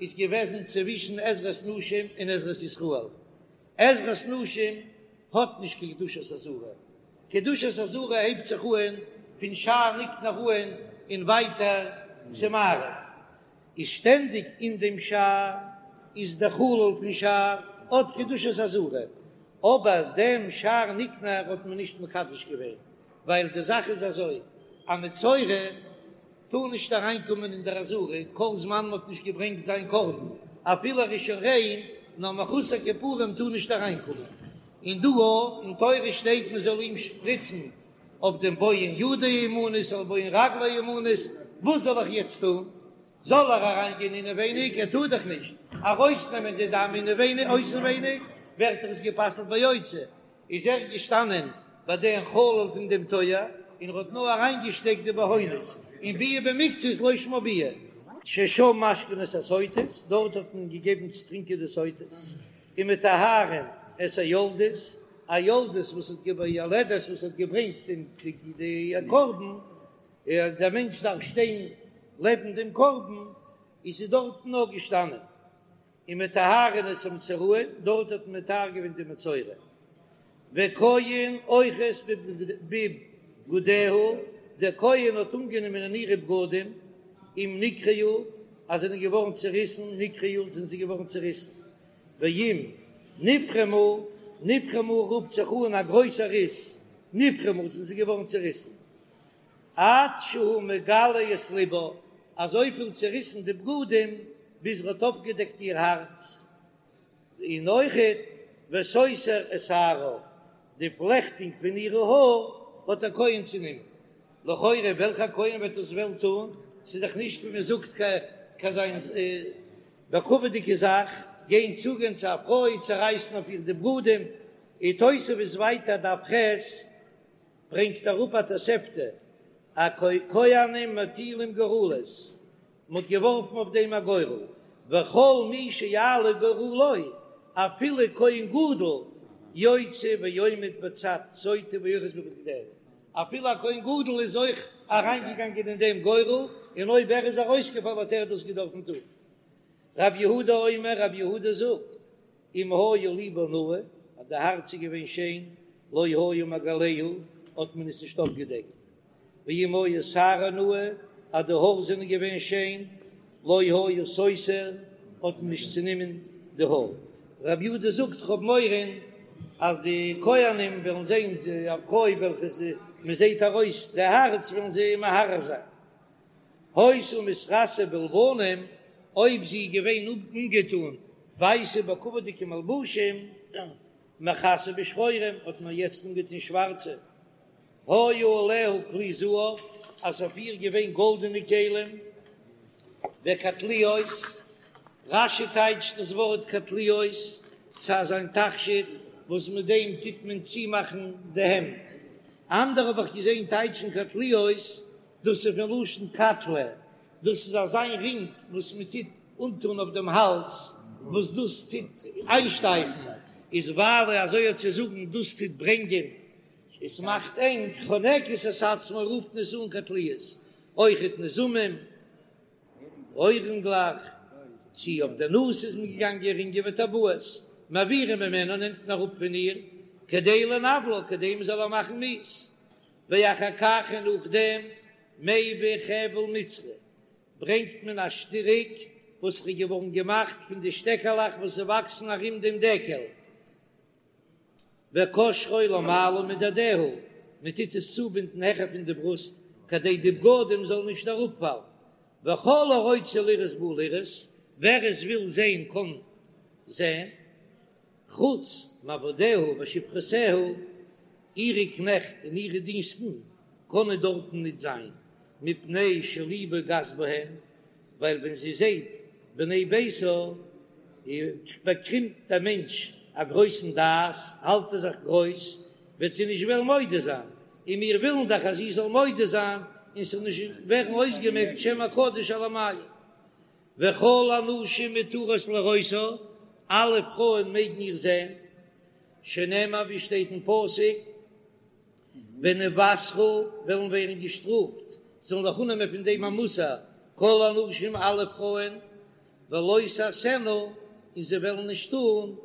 איז געוועזן צווישן עזרת נשים און עזרת ישראל עזרת נשים האט נישט קיין קדושת עזרה קדושת עזרה הייבט זיך אהן פון שער ניקנור אהן און ווייטער צו מערב, איז שטענדיג אין דעם שער איז דער חלל פון שער האט קדושת עזרה, אבער דעם שער ניקנור האט מען נישט מקדש געווען, ווייל די זאך איז אזוי, א מצורע טאר נישט אריינקומען אין דער עזרה כל זמן מען האט נישט געברענגט זיין קרבן, אפילו ער איז שוין ריין, נאר מחוסר כיפורים טאר נישט אריינקומען. און דא אין תורה שטייט מען זאל אים שפריצן אויף דעם בוהן ידו הימנית אויף בוהן רגלו הימנית, וואס זאל איך יעצט טון? זאל ער אריינגיין אינעווייניג, ער טאר דאך נישט ארויסנעמען די דם אינעווייניג, אויסנווייניג ווערט דאך עס גע'פסל'ט ביוצא, איז ער געשטאנען ביי דעם חלל פון דעם טויער און ער האט נאר אריינגעשטעקט די בהונות, און ביאה במקצת לא שמה ביאה. ששם משקין את הסוטות, דארט האט מען געגעבן צו טרינקען די סוטות, ומטהרין את היולדות, א יולדת וואס האט געבוירן, יולדת וואס האט געברענגט די קרבן, דער מענטש דארף שטיין לעבן דעם קרבן, איז זי דארטן נאר געשטאנען. ומטהרין את המצורעים, דארט האט מען מטהר געווען די מצורע. וכהן אוחז בבגדיה, דער כהן האט אנגענומען אין אירע בגדים, אם נקרעו, אז זענען געווארן צעריסן, נקרעו, זענען זיי געווארן צעריסן. ואם נפרמו, נפרמו רופט זיך אן א גרויסער ריס, נפרמו, זענען זיי געווארן צעריסן. עד שהוא מגלה את לבה, אזויפיל צעריסן די בגדים ביז ער האט אויפגעדעקט איר הארץ, און אויכעט וסותר את שערה, די פלעכטונג פון אירע האר האט דער כהן צענומען. לכאורה וועלכער כהן וועט דאס וועלן טון? ס'איז דאך נישט ווי מען זאגט קיין זיין בכבוד'יגע זאך, גיין צוגיין צו א פרוי צערייסן אויף איר די בגדים, און תוספות ווייטער דף ח' ברענגט אראפ א תוספתא, אז כהנים מטילים גורלות, מען האט געווארפן אויף דעם א גורל, וכל מי שיעלה גורלו, אפילו כהן גדול יוצא ועומד בצד סוטה ואוחז בבגדיה, אפילו א כהן גדול איז אויך אריינגעגאנגען אין דעם גורל, און אויב ער איז ארויסגעפאלן האט ער דאס געדארפן טון. רב יהודה אומר, רב יהודה זאגט, אם היה לבה נאה, אז די הארץ איז געווען שיין, לא היה מגלהו, האט מען עס נישט אויפגעדעקט, ואם היה שערה נאה, אז די האר זענען געווען שיין, לא היה סותר, האט מען נישט צענומען די האר. רב יהודה זאגט, כ'האב מורא אז די כהנים וועלן זען א פרוי וועלכע מען זעט ארויס די הארץ, וועלן זיי מהרהר זיין. היתה מתכסה בלבנים, אויב זי איז געווען אנגעטון ווייסע בכבוד'יגע מלבושים, מכסה בשחורים, האט מען יעצט אנגעטון שווארצע. היה עליה כלי זהב, אז אויף איר געווען גאלדענע כלים, וקטליות, רש"י טייטשט דאס ווארט קטליות, ס'איז אזא תכשיט וואס מיט דעם טוט מען צומאכן די העמד, אנדערע האב איך געזען טייטשן קטליות, דאס איז פון לשון קטלא, דאס איז אזא רינג וואס מען טוט אנטון אויף דעם האלז, וואס דאס טוט איינשטייפן, איז ווייל אזוי האט צו זאגן דאס טוט ברענגען, עס מאכט ענג, חונקת את עצמה רופט מען עס אן קטליות, אויכעט נזמים, אוירינגלעך, צי אויף די נאז איז מען געגאנגען רינגען וטבעות, מעבירין ממנה נעמט מען אראפ פון איר, כדי לנוולה, כדי מען זאל איר מאכן מיאוס. ואחר כך און נאכדעם מביא חבל מצרי ברענגט מען א שטריק וואס איז געווארן געמאכט פון די שטעקעלעך וואס וואקסן ארום דעם דקל, וקושרו למעלה מדדיה, מען טוט עס צובינדן העכער פון די ברוסט כדי די בגדים זאלן נישט אראפפאלן, וכל הרוצה לראות בא לראות, ווער עס וויל זען קען זען. חוץ מעבדיה ושפחותיה, אירע קנעכט און אירע דינסטן קענען דארטן ניט זיין, מפני שלבה גס בהן, ווייל ווען זי זעט בני ביתה, באקומט דער מענטש א גרויסן דעת, האלט ער זיך גרויס, וועט זי נישט וועלן מודה זיין, און מיר ווילן דאך אז זי זאל מודה זיין, און ס'זאל נישט ווערן אויסגעמעקט שם הקדוש על המים. וכל הנשים מותרות לראותה, אלע פרויען מעגן איר זען, שנאמר ווי שטייט אין פסוק, ונוסרו וועלן ווערן געשטראפט, זאלן זיך אננעמען פון דעם א מוסר, כל הנשים אלע פרויען, ולא תעשינה, און זיי וועלן נישט טון,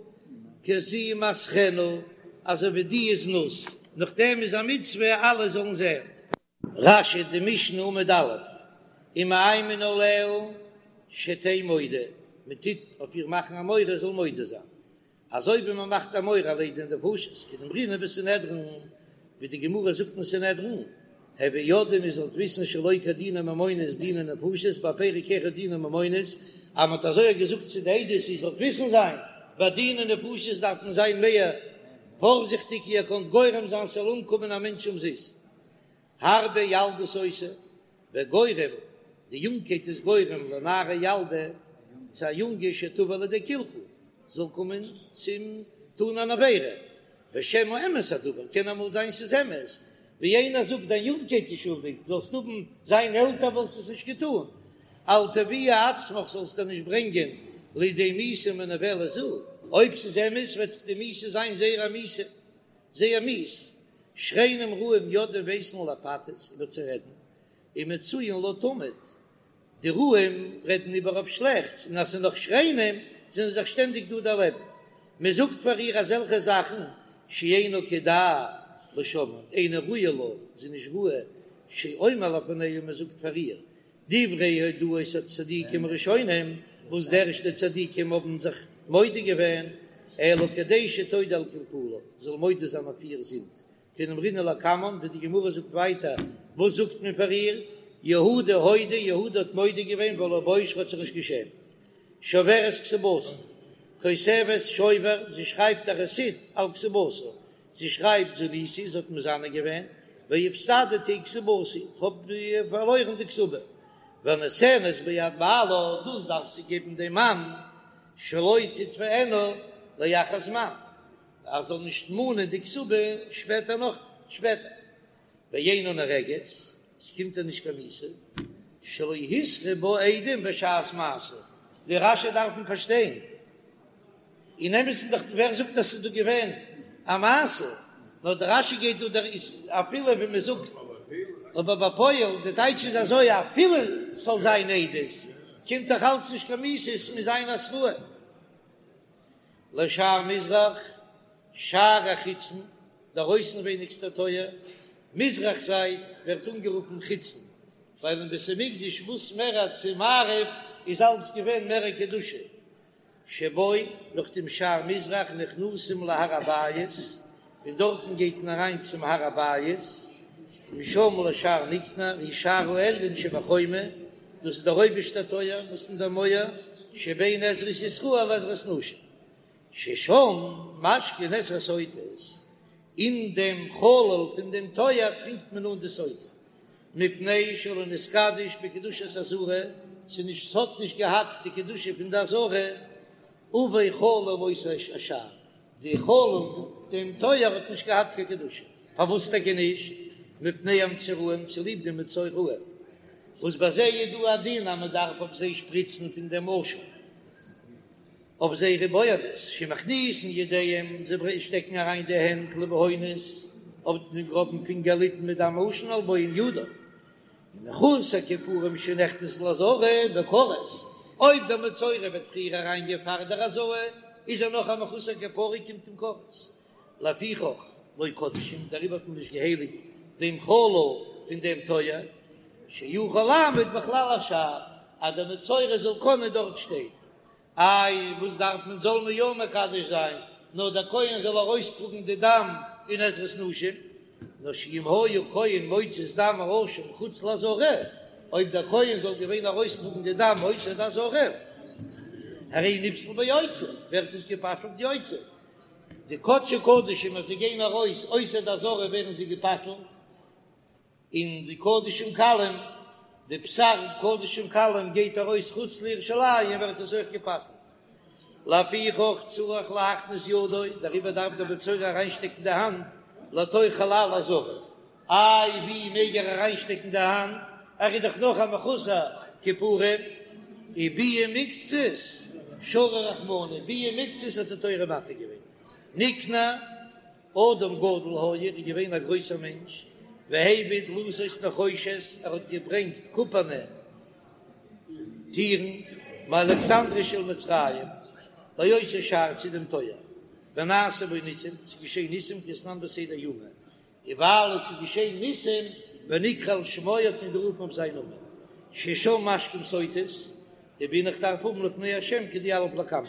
כזמתכנה, אזוי ווי די זנות, נאכדעם איז א מצוה אלע זאלן זען. רש"י די משנה עמוד א', ומאיימין עליה שתהא מודה, מען טוט אויף איר מאכן א מורא זאל מודה זיין, אזוי ווי מען מאכט א מורא על עדי נפשות, כדאמרינן בסנהדרין, ווי די גמרא זאגט אין סנהדרין, הוו יודעים איר זאלט וויסן שלא כדיני ממונות דיני נפשות, בפרק אחד דיני ממונות, אז מען האט אזוי געזאגט צו די עדות איר זאלט וויסן זיין, ביי דיני נפשות דארף מען זיין מער פארזיכטיג איר קענט גורם זיין ס'זאל אומקומען א מענטש אומזיסט. הרבה ילדות עושה, וגורם. די יונגקייט איז גורם לנערה ילדה, צו א יונגע שתבא לידי קלקול, זאל קומען צום טון אן עבירה, ושמא אמת הדבר, קען אמאל זיין ס'איז אמת, ווי איינער זאגט דיין יונגקייט איז שולדיג, זאלסט האבן זיין עלטער וואלסט עס נישט געטון, אל תביאי עצמך זאלסט דיר נישט ברענגען לידי מיתה מנוולת זו, אויב ס'איז אמת וועט דאך די מיתה זיין זייער א מיתה, זייער מיאוס, שכנים רעים יודעים ווייסן לפתות איבער צו רעדן, ומצויין לה תמיד, די רעים רעדן איבער אויף שלעכטס, און אז ס'איז נאך שכנים זענען זיי שטענדיג דא דערלעבן. מען זאגט פאר איר אזעלכע זאכן שאינו כדאי לשומען, אינה ראויה לה, זי איז נישט ראוי, שאומר לפניה, מען זאגט פאר איר דברי הודאות הצדיקים הראשונים, וואס די ערשטע צדיקים האבן זיך מודה געווען, אלא כדי שתודה על קלקולה, זאל מודה זיין אויף איר זינד, כדאמרינן לקמן, ווי די גמרא זאגט ווייטער, וואס זאגט מען פאר איר? יהודה הודה, יהודה האט מודה געווען ולא בוש, האט זיך נישט געשעמט. שוברת כתובתה, כותבת שובר, זי שרייבט א רעסיט על כתובתה, זי שרייבט זניתי, זי האט מזנה געווען, והפסדתי כתובתי, איך האב פארלוירן די כתובה. ונותנת ביד בעלה, דאס דארף זי געבן דעם מאן, שלא תתבענה לאחר זמן. ער זאל נישט מאנען די כתובה שפעטער נאך שפעטער ואינה נהרגת, עס קומט איר נישט קיין מיתה, שלא התרו בה עדים בשעת מעשה, די רש"י דארף מען פארשטיין, אין אמת'ן דאך ווער זאגט אז ס'איז דא געווען א מעשה, נאר די רש"י גייט דא דער איז אפילו ווי מען זאגט, אבער בפועל די טייטש איז אזוי אפילו ס'זאל זיין עדות קומט דאך אלץ נישט קיין מיתה, עס מוז זיין התראה. לשער מזרח, שער החיצון, דער אויסנווייניגסטער טויער, מזרח זייט, ווערט אנגערופן חיצון, ווייל אין בית המקדש וואס מער צו מערב איז אלץ געווען מער קדושה. שבו, נאך דעם שער מזרח נכנסים להר הבית, פון דארטן גייט מען אריין צום הר הבית, ומשם לשער ניקנור, הוא שער העליון שבחומה, דאס איז דער אויבערשטער טויער וואס אין דער מויער, שבין עזרת ישראל לעזרת נשים, ששם משקין את הסוטות, אין דעם חלל פון דעם טויער טרינקט מען אן די סוטה, מפני שלא נתקדש בקדושת עזרה, ס'איז נישט ס'האט נישט געהאט די קדושה פון די עזרה, עובי חלל אותו השער, די חלל דעם טויער האט נישט געהאט קיין קדושה, פארוואס טאקע נישט? מפני המצורעים, צוליב די מצורעים, וואס ביי זיי איז דא א דין אז מען דארף אויף זיי שפריצן פון דעם עשן אויף זייערע בוהנות, שמכניסין ידיהם, זיי שטעקן אריין די הענט לבהונות אויף דעם גראבן פינגער ליתן מדם העשן על בוהן ידו. ומחוסר כיפורים שנכנס לעזרה בכרת, אויב דער מצורע וועט פריער אריינגיין פאר דער הזאה, איז ער נאך א מחוסר כפרה קומט אים כרת. לפיכך לא קדשום, דעריבער האט מען נישט געהייליגט דעם חלל פון דעם טויער, שיוכל לעמוד בחלל השער, אז דער מצורע זאל קענען דארט שטיין. איי וואס דארף מען זאל מען יא מקדש זיין נאר דער כהן זאל ארויסטראגן די דם אין עזרת נשים, נאר שאם היה כהן מוציא את דם האשם חוץ לעזרה, אויב דער כהן זאל געווען ארויסטראגן די דם אויסער די עזרה, הרי נפסל ביוצא, ווערט עס גע'פסל'ט יוצא, די קדשי קדשים אז זיי גייען ארויס אויסער די עזרה ווערן זיי גע'פסל'ט. און די קדשים קלים, די בשר קדשים קלים גייט ארויס חוץ לירושלים ווערט עס אויך גע'פסל'ט. לפיכך צריך להכניס ידו, דעריבער דארף דער מצורע אריינשטעקן די האנט לתוך חלל העזרה. איי ווי מעג ער אריינשטעקן די האנט, ער איז דאך נאך א מחוסר כיפורים. וביאה מקצת שרא רחמנא, ביאה מקצת האט די תורה מתיר געווען. ניקנור. אדם גדול היה, ער איז געווען א גרויסער מענטש, והביא דלתות נחושת, ער האט געברענגט קופערנע טירן, מאלכסנדריה של מצרים, לאותו שער צו דעם טויער, ונעשו בו ניסים, ס'איז געשען ניסים כדתנן בסדר יומא, און ווייל עס איז געשען ניסים, ונקרא על שמו האט מען גערופן אויף זיין נאמען, ששם משקים סוטות, דבעינא איך דארף האבן לפני השם כדיליף לקמן,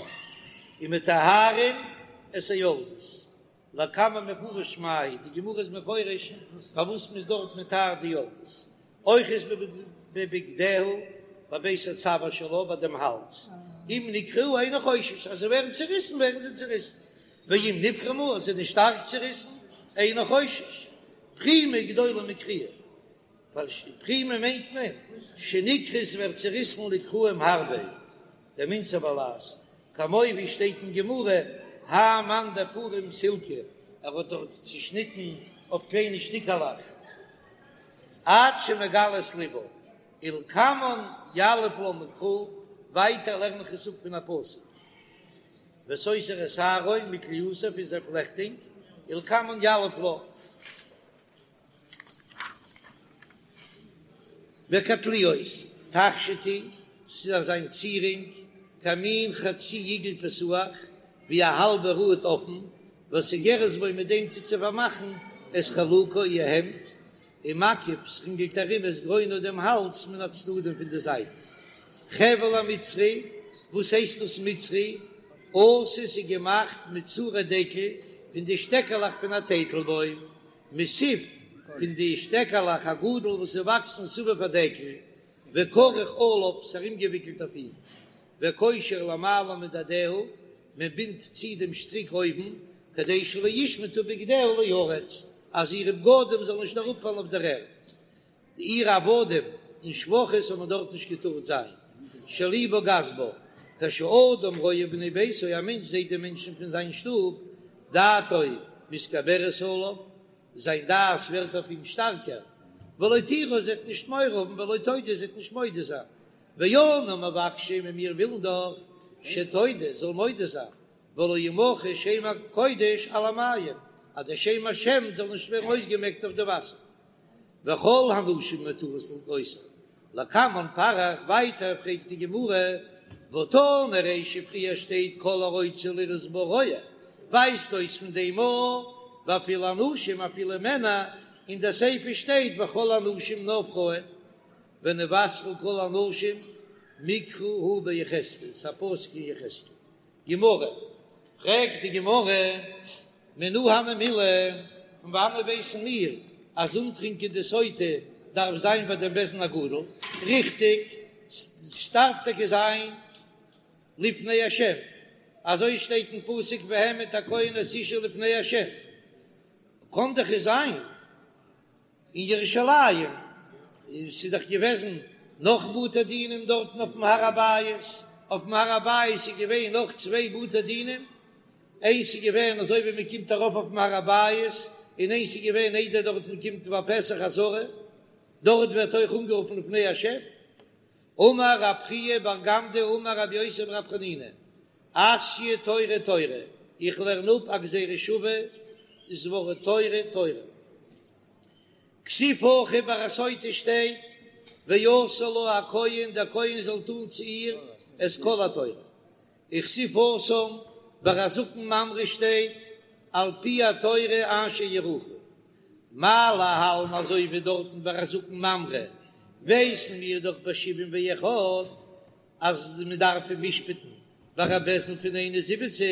ומטהרין את היולדות. לקמן מפרש מאי, די גמרא איז מפרש פארוואס מ'איז דארט מטהר די יולדות, אוחז בבגדיה בבית הצוואר שלה ביי דעם האלז, אם נקרעו אינו חושש, אז זיי ווערן צוריסן ווערן זיי צוריסן, ואם נפרמו אז זיי זענען שטארק צוריסן אינו חושש, פרימה גדולה מקריעה. ווייל פרימה מיינט מען שנקרעה ווערט צעריסן לקרעים הרבה, דמינצר בלע"ז, כמו ווי שטייט אין גמרא, האי מאן דפרים סילקא, ער האט דארט צעשניטן אויף קליינע שטיקעלעך, עד שמגלה את לבה, ולקמן יליף לה מקרא, ווייטער לערן איך עס אפ פון א פסוק, וסותר את שערו מכליאתו פון זיין פלעכטונג, ולקמן יליף לה. וכתליות תכשיט הוא, ס'איז אזא צירונג, כמין חצי עיגול פתוח, ווי א האלבע ראד אפן, וסוגרת בו מיט דעם טוט זי פארמאכן את חלוקה איר העמד, ומקיף ס'רינגלט ארום את גרונה דעם האלז מן הצדדים פון די זייטן. חבל המצרי, וואס הייסט דאס מצרי? עשוי ס'איז געמאכט מצורי דקל, פון די שטעקעלעך פון א טייטלבוים, מסיף פון די שטעקעלעך הגדל וואס איז וואקסן סביב הדקל, וכרוך עליו ס'איז ארומגעוויקלט אויף אים, וקושר למעלה מדדיה, מען בינדט צו דעם שטריק אויבן, כדי שלא ישמטו בגדיה לארץ, אז אירע בגדים זאלן נישט אראפפאלן אויף דער ערד. די אירע עבדים און שפחות האבן דארט נישט געטארט זיין, שליבה גס בה, כשאדם רואה בני ביתו, א מענטש זעט די מענטשן פון זיין שטוב, דעתו מתגברת עליו, זיין דעת ווערט אויף אים שטארקער, ולא תירא, זי וועט נישט מורא האבן, ולא תודה, זי וועט נישט מודה זיין, ואנו מבקשים און מיר ווילן דאך, שתודה, זאל מודה זיין, ולא ימחה שם הקודש על המים, אז דער שם השם זאל נישט ווערן אויסגעמעקט אויף די וואסער. וכל הנשים מותרות לראותה, לקמן פריך, ווייטער פרעגט די גמרא, והא תנא רישא פריער שטייט כל הרוצה לראות בה רואה, ווייזט אויס פון דעם א ואפילו אנשים אפילו מענער, אין די סיפא שטייט וכל הנשים נאר פרויען, ונוסרו כל הנשים מקרא הוא ביחזקאל, ס'א פסוק אין יחזקאל. גמרא, פרעגט די גמרא, מנא הני מילי, פון וואנעט ווייסן מיר אז אנטרינקען די סוטה דארף זיין ביי דעם בית דין הגדול? ריכטיג, ס'דארף טאקע זיין לפני השם, אזוי שטייט אין פסוק והעמיד הכהן את האשה לפני השם, קען דאך עס זיין אין ירושלים, ס'איז דאך געוועזן נאך בתי דינים דארטן אויפן הר הבית, אויפן הר הבית איז געווען נאך צוויי בתי דינים, איינס איז געווען אזוי ווי מען קומט ארויף אויפן הר הבית, און איינס איז געווען איידער דארטן קומט ביי פתח העזרה, דארט ווערט אויך אנגערופן לפני השם. אמר רב חייא בר גמדא אמר רבי יוסי ברבי חנינא, אתיא תורה תורה, איך לערן אפ א גזירה שווה, דאס ווארט תורה תורה. כתיב הכא ביי א סוטה שטייט ועשה לה הכהן דער כהן זאל טון צו איר את כל התורה, וכתיב התם ביי א זקן ממרא שטייט על פי התורה אשר יורוך, מה להלן אזוי ווי דארטן ביי א זקן ממרא ווייסן מיר דאך בשבעים ואחד אז מען דארף אים משפט'ן ביי א בית דין פון 71,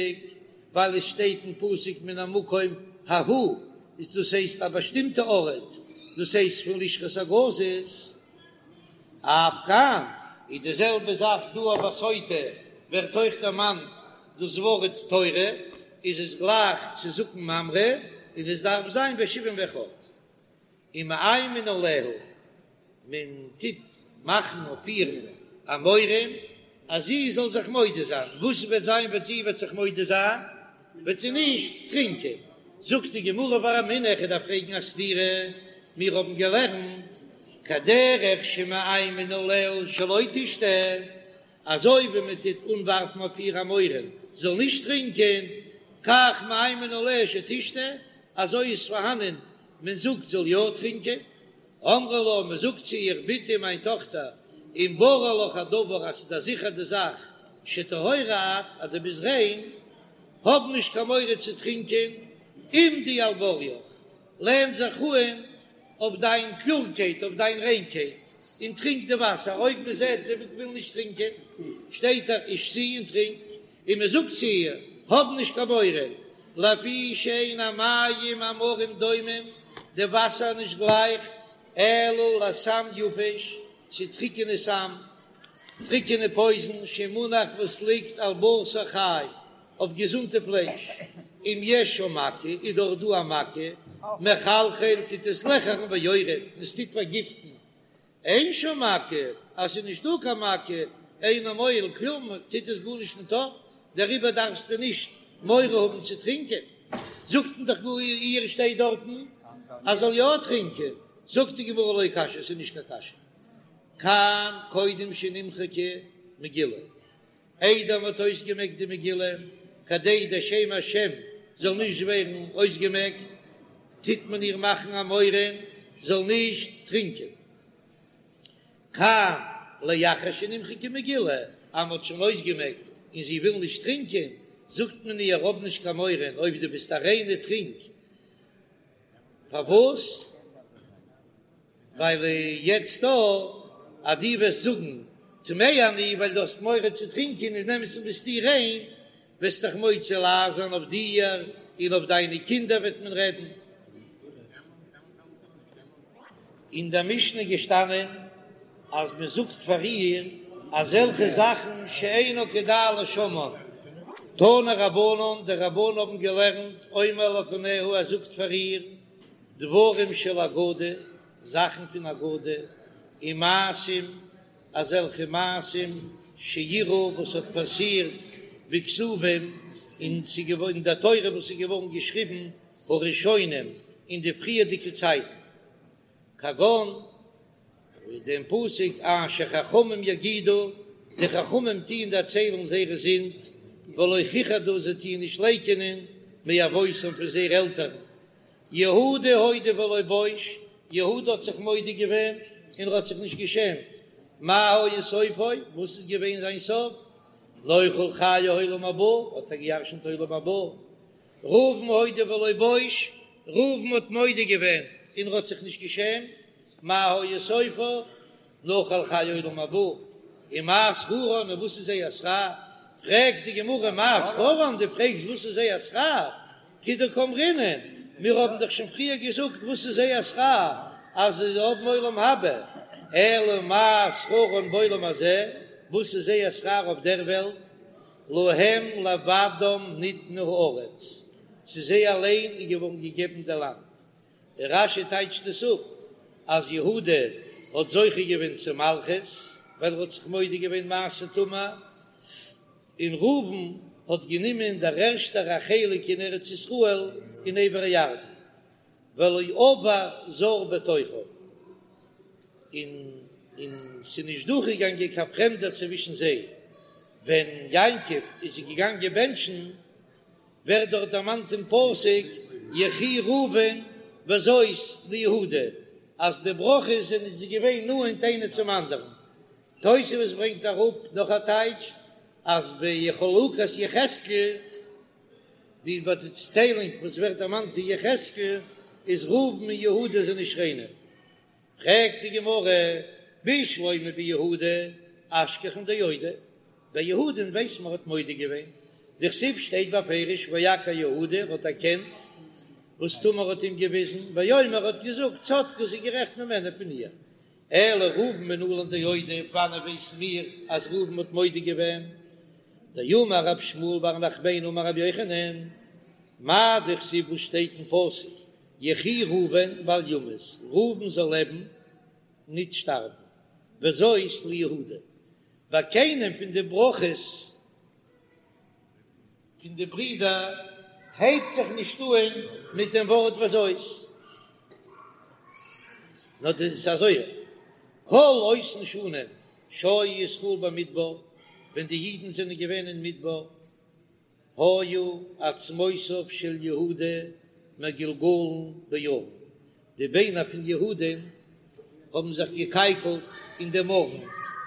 ווייל עס שטייט אין פסוק מן המקום ההוא, איז דאס הייסט א באשטימטע ארט, דאס הייסט פון לשכת הגזית. אף כאן איז די זעלבע זאך דא אויף א סוטה ווערט אויך דערמאנט דאס ווארט תורה, איז עס גלייך צו זקן ממרא און עס דארף זיין בשבעים ואחד. ומאיימין עליה, מען טוט מאכן אויף איר א מורא אז זי זאל זיך מודה זיין, וואס וועט זיין ווען זי וועט זיך מודה זיין? וועט זי נישט טרינקען. זאגט די גמרא ורמינהו, איך דארף פרעגן א סתירה, מיר האבן געלערנט כדרך שמאיימין עליה שלא תשתה, אזוי ווי מען טוט אנווארפן אויף איר א מורא זאל נישט טרינקען, כך מאיימין עליה שתשתה, אזוי איז פארהאנען מען זאגט זאל יא טרינקען, אומרים לה, מען זאגט צו איר, בתי מיין טאכטער, אם ברור לך הדבר אז ס'איז דיר זיכער די זאך שטהורה את, אז דו ביסט ריין, האב נישט קיין מורא צו טרינקען, עמדי על בוריך, לען זיך אן אויף דיין קלארקייט, אויף דיין ריינקייט, און טרינק די וואסער, אויב מען זעט זי וויל נישט טרינקען, שטייט ער ושתי און טרינק, און מען זאגט צו איר, האב נישט קיין מורא, לפי שאין המים המרים דומים, די וואסער איז נישט גלייך, אלא לסם יבש, צו טריקענע סם, טריקענע פויזן, שמונח וואס ליגט על בשר חי, אויף געזונטע פלייש, אם יש שם מכה, איז דארט דא א מכה, מחלחל טוט עס לעכערן ויורד, און עס טוט פארגיפטן. אין שם מכה, אז ס'איז נישט דא קיין מכה, אינו מועיל כלום, טוט עס גארנישט ניט אויף, דעריבער דארפסטו נישט מורא האבן צו טרינקען. זאגט מען דאך גאר איר שטייט דארטן אז זאל יא טרינקען, זאגט די גמרא לא קשיא, ס'איז נישט קיין קשיא, כאן קודם שנמחקה מגילה, איידער מ'האט אויסגעמעקט די מגילה, כדי דער שם השם זאל נישט ווערן אויסגעמעקט, טוט מען איר מאכן א מורא זאל נישט טרינקען. כאן לאחר שנמחקה מגילה, אז מ'האט שוין אויסגעמעקט און זי וויל נישט טרינקען, זאגט מען איר האב נישט קיין מורא, אויב דו ביסט א ריינע טרינק. פארוואס? ווייל יעצט דא אז דו וועסט זאגן טמאה אני ווייל דו האסט מורא צו טרינקען אין אמת'ן ביסטו ריין, וועסט דאך מוציא לעז זיין אויף דיר און אויף דיינע קינדער וועט מען רעדן. אין דער משנה געשטאנען אז מען זאגט פאר איר אזעלכע זאכן שאינו כדאי לשומען. תנו רבנן, די רבנן האבן געלערנט, אומר לפניה, ער זאגט פאר איר דברים של אגדה, זאכן פון אגדה, ומעשים, אזעלכע מעשים שאירעו וואס האט פאסירט בכתובים, און אין דער תורה וואס איז געווארן געשריבן הראשונים אין די פריערדיגע צייטן, כגון ווי דעם פסוק אשר חכמים יגידו, די חכמים טוען דערציילן זייערע זינד, ולא כיחדו זיי טוען נישט לייקענען מאבותם פון זייערע עלטערן. יהודה הודה ולא בוש, יהודה האט זיך מודה געווען און ער האט זיך נישט געשעמט, מה היה סופו, וואס איז געווען זיין סוף, נוחל חיי עולם הבא, האט ער געירשנט עולם הבא, ראובן הודה ולא בוש, ראובן האט מודה געווען און ער האט זיך נישט געשעמט, מה היה סופו, נחל חיי עולם הבא, ומה שכרן, און וואס איז זייער שכר? פרעגט די גמרא מה שכרן, דו פרעגסט וואס איז זייער שכר? כדקאמרינן, מיר האבן דאך שוין פריער געזאגט וואס איז זייער שכר, אז זיי האבן עולם הבא, אלא מה שכרן בעולם הזה, וואס איז זייער שכר אויף דער וועלט? להם לבדם ניתנה הארץ, צו זיי אליין איז געווארן געגעבן די לאנד. רש"י טייטשט עס אפ אז יהודה האט זוכה געווען צו מלכות ווייל ער האט זיך מודה געווען מעשה תמר, און ראובן האט גענומען דער ערשטער א חלק אין ארץ ישראל אין עבר הירדן. ולא עבר זר בתוכם, און און ס'איז נישט דורכגעגאנגען קיין פרעמדער צווישן זיי, ווען יעקב איז זיי געגאנגען בענטשן, ווערט דארט דערמאנט אין פסוק יחי ראובן וזאת ליהודה, אז די ברכות זענען זיי געווען נאנט איינער צום אנדערן. תוספות ברענגט אראפ נאך א טייטש, אז בחלוקת יחזקאל, ווי ביי די צעטיילונג וואס ווערט דערמאנט אין יחזקאל איז ראובן און יהודה זענען שכנים. פרעגט די גמרא, בשלמא ביהודה אשכחן דאודי, ביי יהודה'ן ווייס מען האט מודה געווען, דכתיב שטייט בפירוש ויכר יהודה ער האט דערקענט וואס תמר האט אים געוויזן, ויאמר האט געזאגט צדקה זי איז גערעכט ממנה פון איר, אלא ראובן מנלן דאודי, וואנען ווייסן מיר אז ראובן האט מודה געווען? דאמר רב שמואל בר נחמני אמר רבי יוחנן, מאי דכתיב וואס שטייט אין פסוק יחי ראובן ואל ימות, ראובן זאל לעבן ניט שטארבן, וזאת ליהודה, ביי קיינעם פון די ברכות פון די ברידער הייבט זיך נישט אהן מיט דעם ווארט וזאת, נאר דאס איז אזוי, כל אותן שנים שהיו ישראל במדבר, ווען די אידן זענען געווען אין מדבר, היו עצמותיו של יהודה מגולגלין בארון, די ביינער פון יהודה'ן האבן זיך געקייקלט אין דעם ארון,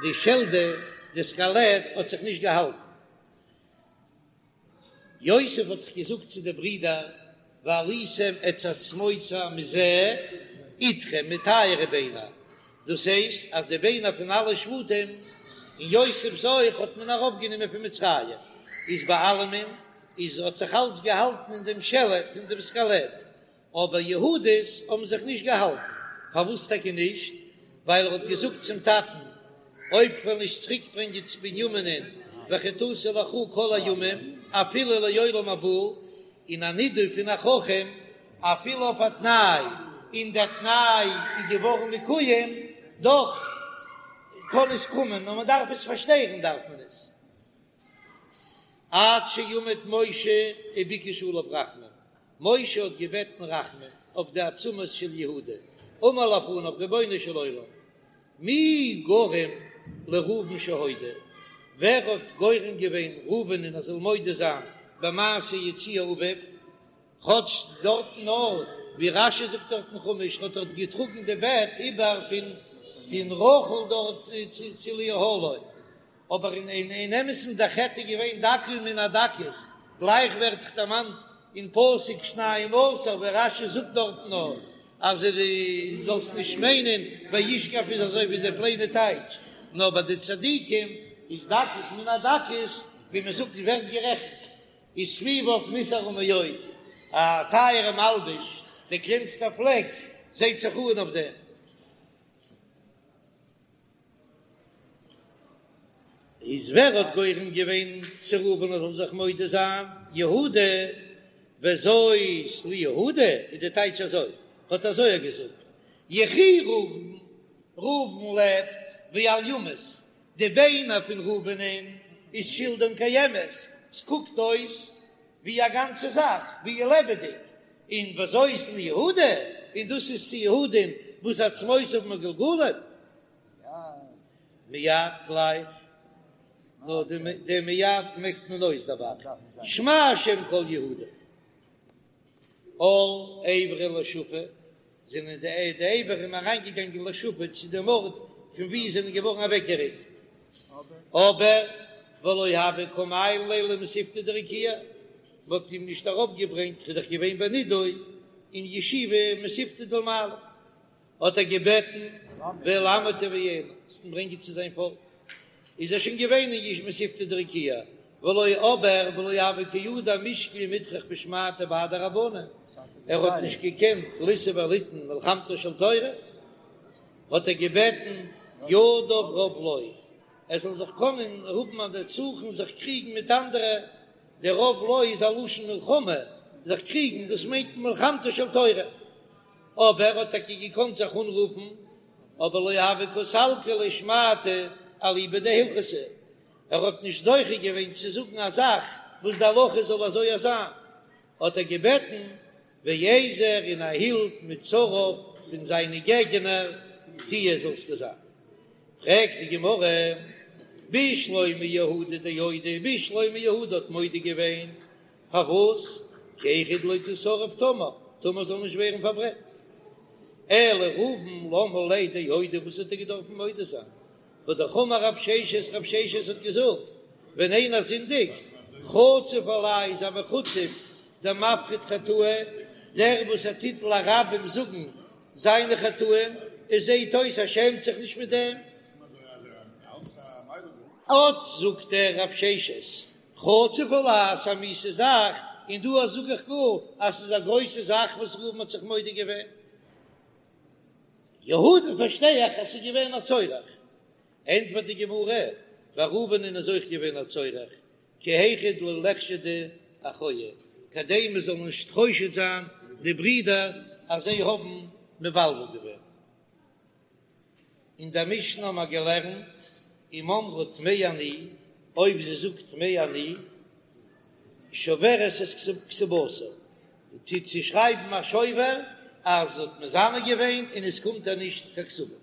די שלדה, די סקעלעט, האט זיך נישט געהאלטן. יוסף האט דאך געזאגט צו די ברידער, והעליתם את עצמותי מזה אתכם, מיט אייערע ביינער, דאס הייסט אז די ביינער פון אלע שבטים און יוסף'ס אויך האט מען ארויפגענומען פון מצרים, איז ביי אלעמען איז האט זיך אלץ געהאלטן אין דעם שלד, אין דעם סקעלעט, אבער יהודה'ס האבן זיך נישט געהאלטן, פארוואס טאקע נישט? ווייל ער האט געזאגט צום טאטן, אויב כ'וועל נישט צוריק ברענגען צו בנימינ'ען וחטאתי לך כל הימים אפילו לעולם הבא, און א נידוי פון א חכם אפילו אויף א תנאי, און דער תנאי איז געווארן מקוים, דאך קען עס קומען, נאר מען דארף עס פארשטערן דארף מען עס. עד שעמד משה וביקש עליו רחמים, משה האט געבעטן רחמים אויף די עצמות של יהודה, אמר לפניו רבונו של עולם, מי גרם לראובן שהודה, ווער האט גורם געווען ראובנ'ען ער זאל מודה זיין במעשה יציע אביו, כאטש דארטן נאר ווי רש"י זאגט דארט אין חומש האט ער געטראגן די בעט איבער פון פון רחל דארט צו לאהלו, אבער אין אין אמת'ן דער חטא איז געווען דקה מן הדקות, גלייך ווערט דאך דערמאנט אין פסוק שנים עשר ווי רש"י זאגט דארטן נאר אז דו זאלסט נישט מיינען וישכב איז אזוי ווי די פלעינע טייטש, נאר ביי די צדיקים איז דקות מן הדקות ווי מען זאגט ווערט גערעכנט וסביביו נתערה מאוד, א טייערע מלבוש, די קלענסטע פלעק זעהט זיך אן אויף דעם. איז ווער האט גורם געווען צו ראובן ער זאל זיך מודה זיין? יהודה, וזאת ליהודה איז די טייטש אזוי, האט אזוי ער געזאגט, יחי ראובן, ראובן לעבט, ואל ימות, די ביינער פון ראובנ'ען איז שלדן קיימת, ס'קוקט אויס ווי א גאנצע זאך, ווי לעבעדיג, און וזאת ליהודה, און דאס איז צו יהודה'ן וואס עצמותיו מגולגלים. מיד גלייך, נאר די מיד מעקט מען אויס דער ב"ח, שמע השם קול יהודה. על איבריה לשפא, זענען די איברים אריינגעגאנגען לשפא צו דעם ארט פון וואו זיי זענען געווארן אוועקגעריקט, אבער ולא הוו קא מעיילין ליה למתיבתא דרקיעא, מען האט אים נישט ארויפגעברענגט, ער איז דאך געווען בנידוי אין ישיבה מתיבתא דלמעלה. האט ער געבעטן ואל עמו תביאנו, זאלסט אים ברענגען צו זיין פאלק, איז ער שוין געווען אין יש מתיבתא דרקיעא, ולא אבער ולא הוה קא ידע מישקל ומטרח בשמעתיה בהדי רבנן, ער האט נישט געקענט לישא וליתן מלחמתה של תורה, האט ער געבעטן ידיו רב לו, ער זאל זיך קענען האבן א נצחון זיך קריגן מיט אנדערע, דער רב לו איז א לשון מלחמה, זיך קריגן, דאס מיינט מלחמתה של תורה. אבער ער האט טאקע געקאנט זיך אנרופן, אבער לא הוה קא סלקא ליה שמעתא אליבא דהלכתא, ער האט נישט זוכה געווען צו זאגן א זאך וואס די הלכה זאל אזוי זיין, האט ער געבעטן ועזר און א הילף מצריו פון זיינע געגענער תהיה זאלסטו זיין. פרעגט די גמרא, בשלמא יהודה דאודי, בשלמא יהודה האט מודה געווען פארוואס? כי היכי דלא תישרף תמר, תמר זאל נישט ווערן פארברענט. אלא ראובן למה ליה דאודי, וואס האט ער געדארפן מודה זיין? והא דאמר רב ששת, רב ששת האט געזאגט, ווען איינער זינדיגט, חצוף עלי איז א מחוצף דמפריט חטאיה, דער וואס ער טוט לרבים זאגן זיינע חטאים, עס זעט אויס ער שעמט זיך נישט מיט דעם. אט זאגט ער רב ששת, חצוף עלי ס'איז א מיאוסע זאך, און דא זאג איך גאר אז ס'איז א גרויסע זאך וואס ראובן האט זיך מודה געווען. יהודה פארשטיי איך אז ס'איז געווען א צורך. ענטפערט די גמרא, ביי ראובנ'ען איז אויך געווען א צורך, כי היכי דלא ליחשדו אחוהי, כדי מען זאל נישט חושד זיין די ברידער אז זיי האבן מבלבל געווען. אין דער משנה האבן מיר געלערנט, אם אמרה טמאה אני, אויב זי זאגט טמאה אני, שוברת את כתובתה, טוט זי שרייבן א שובר אז זי האט מזנה געווען און עס קומט איר נישט קיין כתובה.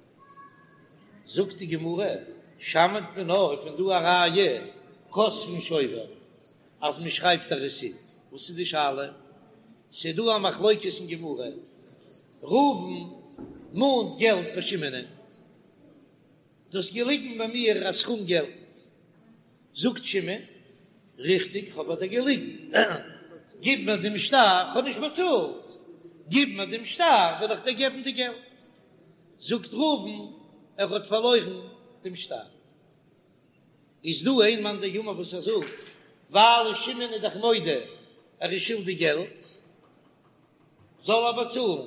זאגט די גמרא, שמעת מינה, פון דא א ראיה, כותבין שובר, אז מען שרייבט א רעסיט. וואס איז די שאלה? ס'איז דא א מחלוקת אין גמרא, ראובן מאנט געלט ביי שמעונ'ען, דו האסט געליגן ביי מיר א סכום געלט, זאגט שמעון, ריכטיג כ'האב ביי דיר געליגן, גיב מיר דעם שטר, כ'האב נישט באצאלט, גיב מיר דעם שטר וועל איך דיר געבן די געלט, זאגט ראובן, ער האט פארלוירן דעם שטר. איז דא איין מאן דאמר וואס ער זאגט, ווייל שמעון איז דאך מודה ער איז שולדיג געלט, זאל ער באצאלן,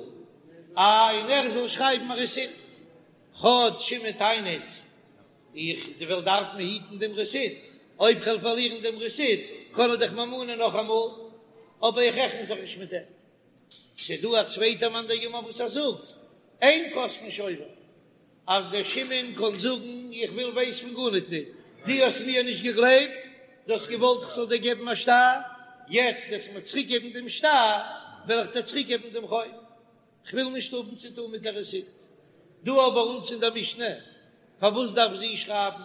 איי און ער זאל שרייבן א רעסיט, כאטש שמעון טענה'ט איך וועל דארפן היטן דעם רעסיט, אויב כ'וועל פארלירן דעם רעסיט קען ער דאך מיר מאנען נאכאמאל, אבער איך רעכן זיך נישט מיט אים. ס'איז דא א צווייטער מאן דאמר וואס ער זאגט, אין כותבין שובר. אז דער שמעון קען זאגן איך וויל ווייס פון גארניט ניט, דו האסט מיר נישט געגלייבט, דו האסט געוואלט איך זאל דיר געבן א שטר, יעצט וועסט מיר צוריק געבן דעם שטר, וועל איך דיר צוריק געבן דעם חוב, כ'וויל נישט האבן צו טון מיט דער רעסיט. דא ביי אונז אין דער משנה, פארוואס דארף זי שרייבן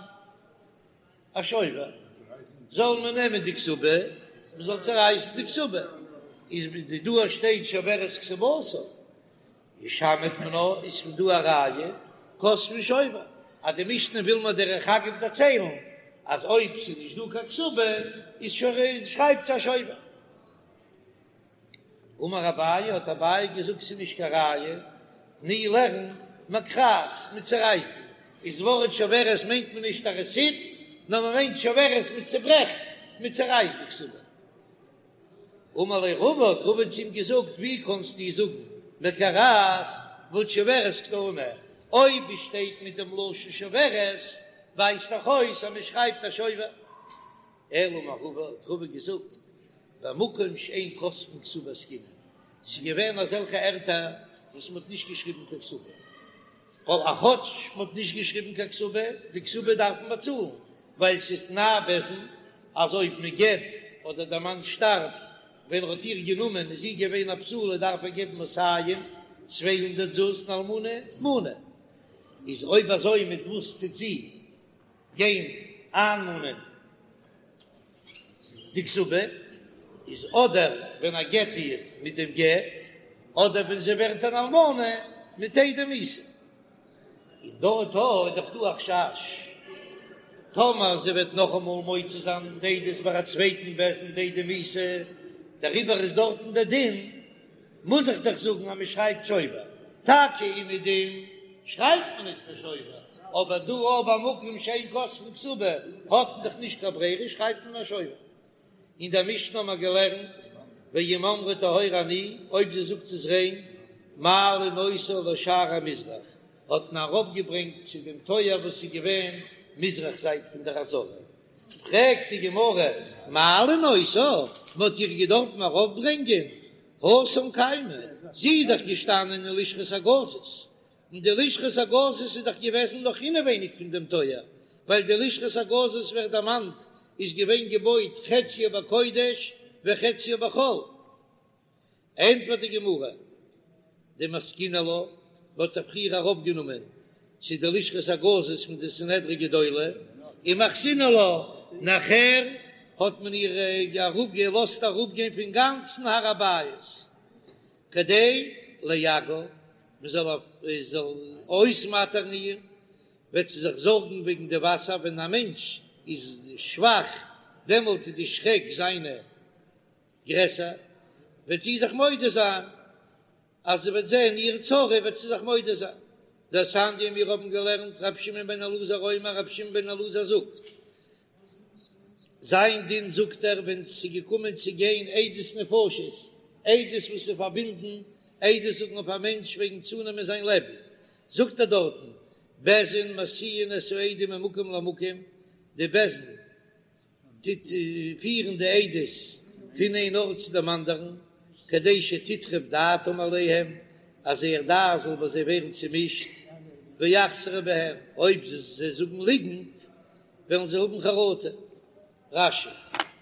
א שובר? זאל מען נעמען די כתובה, מען זאל צערייסן די כתובה, איז דא שטייט שוברת כתובתה, איז שמעת מינה איז פון דא א ראיה כותבין שובר, אז די משנה וויל מיר דרך אגב דערציילן אז אויב ס'איז נישט דא קיין כתובה איז שרייבט זי א שובר. אמר אביי, האט אביי געזאגט ס'איז נישט קיין ראיה, תני לערן מקרעת, מ'צערייסט די, איז ווארט שוברת מיינט מען נישט א רעסיט, נאר מען מיינט שוברת מ'צעברעכט, מ'צערייסט די כתובה. אמר ליה רבא, האט רבא צו אים געזאגט, ווי קאנסטו זאגן מקרעת והא שוברת קתני, אויב עס שטייט מיט דעם לשון שוברת ווייזט דאך אויס אז מען שרייבט א שובר. אלא אמר רבא, האט רבא געזאגט, במקום שאין כותבין כתובה עסקינן, ס'איז געווען אזעלכע ערטער וואס מ'האט נישט געשריבן קיין כתובה, ווייל כאטש מ'האט נישט געשריבן קיין כתובה, די כתובה דארף מען באצאלן, ווייל ס'איז תנאי בית דין אז אויב מ'גט אדער דער מאן שטארבט ווען ער האט איר גענומען איז זי געווען א בתולה דארף ער געבן מאתים 200 זוז און אלמנה מנה, איז אויב אזוי מיט וואס טוט זי גיין איינמאנען די כתובה איז אדער ווען ער גט איר מיט דעם גט, אדער ווען זי ווערט אן אלמנה מיט עדי מיתה. און דארט איז דאך דא א חשש טאמער זי וועט נאכאמאל מוציא זיין די עדות ביי א צווייטן בית דין די עדי מיתה, דעריבער איז דארטן דער דין מוז איך דאך זאגן אז מען שרייבט שובר, טאקע אומעדום שרייבט מען נישט קיין שובר, אבער דא אויב במקום שאין כותבין כתובה האט מען דאך נישט קיין ברירה שרייבט מען א שובר. אין דער משנה האט מען געלערנט ואם אמרה טהורה אני, אויב זי זאגט ס'איז ריין, מעלין אותה לשער המזרח, האט מען ארויפגעברענגט צו דעם טויער וואס איז געווען מזרח זייט פון דער עזרה, פרעגט די גמרא, מעלין אותה, מען האט איר געדארפן ארויפברענגען התם קיימא, זי איז דאך געשטאנען אין לשכת הגזית, און די לשכת הגזית איז דאך געוועזן נאך אינעווייניג פון דעם טויער, ווייל די לשכת הגזית ווערט דערמאנט איז געווען געבויט חציה בקודש וחציה בחול. ענטפערט די גמרא, דמסקינן לה, מ'האט זי פריער ארויפגענומען צו די לשכת הגזית פון די סנהדרי גדולה, ומחתינן לה, נאכער האט מען איר געלאזט אראפגיין פון גאנצן הר הבית, כדי לייגעה, מען זאל אויסמאטערן איר, וועט זי זיך זארגן וועגן די וואסער, ווען א מענטש איז שוואך דעמאלט איז די שרעק זיינע גרעסער, וועט זי זיך מודה זיין, אז זי וועט זען איר צרה וועט זי זיך מודה זיין. דתניא מיר האבן געלערנט רבי שמעון בן אלעזר אומר רבי שמעון בן אלעזר זאגט, זיין דין זאגט ער ווען ס'איז געקומען צו גיין עדות נפשות, עדות וואס איז פארבינדן, עדות זאגן אויף א מענטש וועגן צונעמען זיין לעבן, זאגט ער דארטן, בית דין מסיעין את העדים ממקום למקום, די בית דין טוט פירן די עדות פון איין ארט צו דעם אנדערן, כדי שתטרף דעתם עליהם, אז זייער דעת זאל ביי זיי ווערן צומישט, ויחזרו בהם, אויב זיי זאגן ליגנט, וועלן זיי האבן חרטה. רש"י.